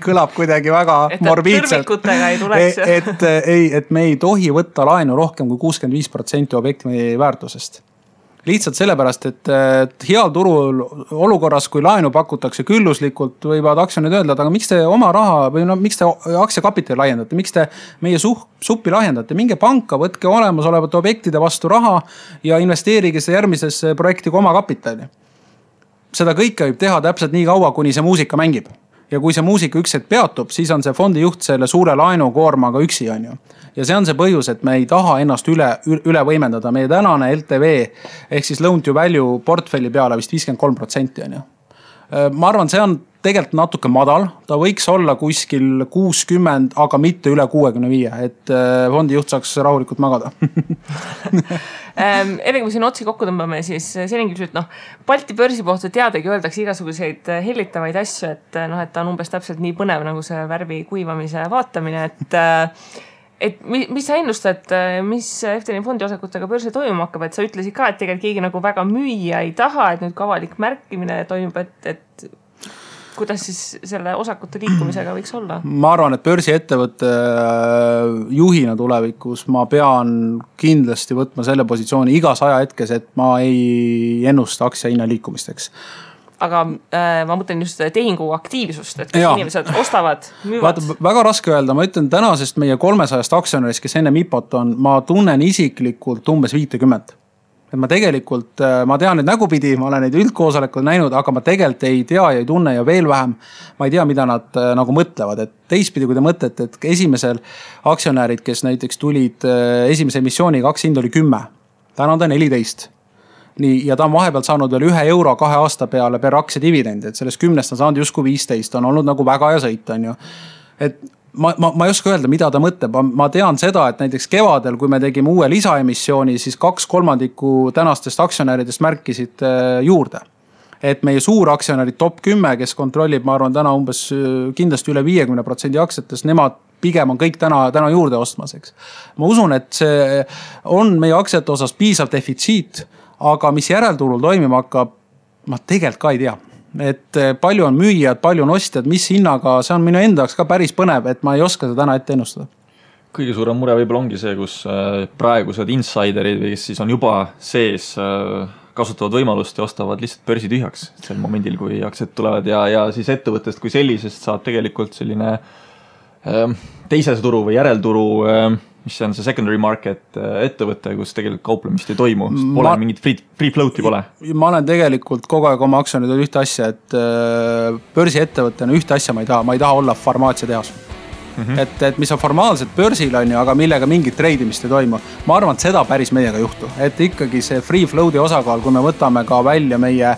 Speaker 3: Kõlab kuidagi väga morbiidselt.
Speaker 1: Tõrvikutega ei tuleks.
Speaker 3: Et me ei tohi võtta laenu rohkem kui 65% objekti väärtusest. Lihtsalt sellepärast, et heal turul olukorras, kui laenu pakutakse külluslikult, võivad aktsionid öelda, aga miks te oma raha või miks te aktsiakapitali laiendate, miks te meie suppi laiendate, minge panka, võtke olemasolevate objektide vastu raha ja investeerige see järgmisesse projekti kui oma kapitali. Seda kõike võib teha täpselt nii kaua, kuni see muusika mängib. Ja kui see muusika üks hetk peatub, siis on see fondi juht selle suure laenukoormaga üksi on ju. Ja see on see põhjus, et me ei taha ennast üle võimendada. Meie tänane LTV ehk siis loan to value portfelli peale vist 53% on ju. Ma arvan, see on tegelikult natuke madal, ta võiks olla kuskil 60, aga mitte üle 65, et fondi juht saaks rahulikult magada.
Speaker 1: Enne kui siin otsi kokku tõmbame, siis selline küsimus, et Balti börsi kohta teadagi öeldakse igasuguseid hellitavaid asju, et ta on umbes täpselt nii põnev nagu see värvi kuivamise vaatamine, et mis sa ennustad, mis FTN fondi osakutega börsil toimuma hakkab, et sa ütlesid ka, et tegelikult keegi nagu väga müüa ei taha, et nüüd ka avalik märkimine toimub, et kuidas siis selle osakute liikumisega võiks olla?
Speaker 3: Ma arvan, et börsiettevõtte juhina tulevikus ma pean kindlasti võtma selle positsiooni igas ajahetkes, et ma ei ennusta aktsia hinna liikumisteks.
Speaker 1: Aga ma mõtlen just tehingu aktiivsust, et inimesed ostavad, müüvad.
Speaker 3: Väga raske öelda, ma ütlen tänasest meie 300 aktsionärist, kes enne MIPOt on, ma tunnen isiklikult umbes 50. Et ma tegelikult, ma tean neid nägupidi, ma olen neid üldkoosolekud näinud, aga ma tegelikult ei tea ja ei tunne ja veel vähem. Ma ei tea, mida nad nagu mõtlevad. Et teistpidi, kui te mõtlete, et esimesel aktsionärid, kes näiteks tulid esimese emissiooniga, aktsia oli 10. Täna on ta 14. Nii, ja ta on vahepealt saanud veel €1 2 aasta peale per aktsia dividendi, et sellest 10 on saanud justkui 15, on olnud nagu väga ja sõit, on ju. Et ma ei oska öelda, mida ta mõtleb. Ma tean seda, et näiteks kevadel, kui me tegime uue lisaemissiooni, siis 2/3 tänastest aktsionäridest märkisid juurde. Et meie suur aktsionärid top 10, kes kontrollib, ma arvan, täna umbes kindlasti üle 50% aktsiatest, nemad pigem on kõik täna juurde ostmaseks. Ma usun, et see on meie aktsiate osas piisav defitsiit, aga mis järelturul toimima hakkab, ma tegelikult ka ei tea. Et palju on müüjad, palju on ostjad, mis hinnaga, see on minu endaks ka päris põnev, et ma ei oska seda täna ette ennustada.
Speaker 2: Kõige suurem mure võib-olla ongi see, kus praegused insiderid, kes siis on juba sees, kasutavad võimalust ja ostavad lihtsalt börsi tühjaks sel momendil, kui aktsiad tulevad ja siis ettevõttest kui sellisest saab tegelikult selline teise turu või järelturu, mis on see secondary market ettevõte, kus tegelikult kauplemist ei toimu, pole mingit free float'i pole.
Speaker 3: Ma olen tegelikult kogu aeg oma aktsionäridel ühte asja, et börsi ettevõttena ühte asja ma ei taha olla farmaatsiatehas. Et mis on formaalselt börsil on ju, aga millega mingit treidimist ei toimu. Ma arvan, et seda päris meiega juhtu, et ikkagi see free float'i osakaal, kui me võtame ka välja meie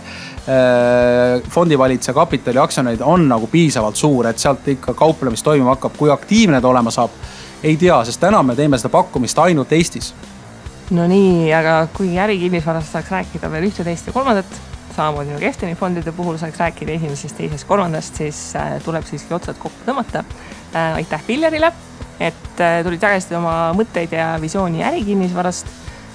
Speaker 3: fondivalitse kapitali aktsionärid on nagu piisavalt suur, et sealt ikka kauplemist toimuma hakkab, kui aktiivne ta olema saab. Ei tea, sest täna me teeme seda pakkumist ainult Eestis.
Speaker 1: No nii, aga kui ärikinnisvarast saaks rääkida veel 1, 2 ja 3, samamoodi nagu FTN fondide puhul saaks rääkida 1., 2., 3, siis tuleb siiski otsad kokku tõmmata. Aitäh Villarile, et tulid jagasid oma mõtteid ja visiooni ärikinnisvarast.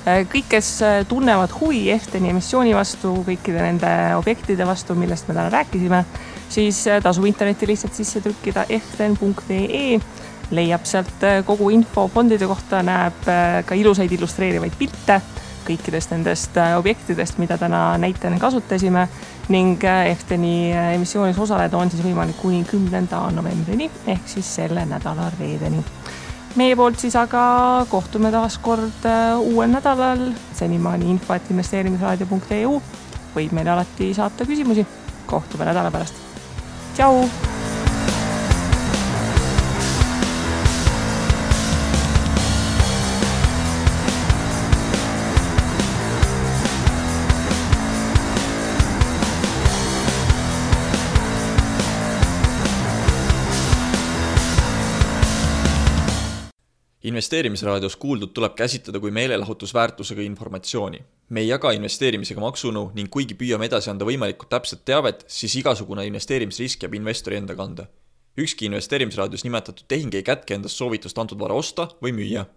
Speaker 1: Kõik, kes tunnevad huvi FTN emissiooni vastu, kõikide nende objektide vastu, millest me täna rääkisime, siis tasub interneti lihtsalt sisse trükkida ftn.ee. Leiab sealt kogu info fondide kohta, näeb ka ilusaid illustreerivaid pilte kõikidest nendest objektidest, mida täna näitena kasutasime ning FTN-i emissioonis osaleda on siis võimalik kuni 10. novembrini ehk siis selle nädala reedeni. Meie poolt siis aga kohtume taas kord uuel nädalal. Senimaani info@investeerimisraadio.eu võib meile alati saata küsimusi. Kohtume nädala pärast. Tšau!
Speaker 2: Investeerimisraadios kuuldud tuleb käsitleda kui meelelahutusväärtusega informatsiooni. Me ei jaga investeerimisega maksunu ning kuigi püüame edasi anda võimalikult täpset teavet, siis igasugune investeerimisrisk jääb investori enda kanda. Ükski investeerimisraadios nimetatud tehing ei kätke endast soovitust antud vara osta või müüa.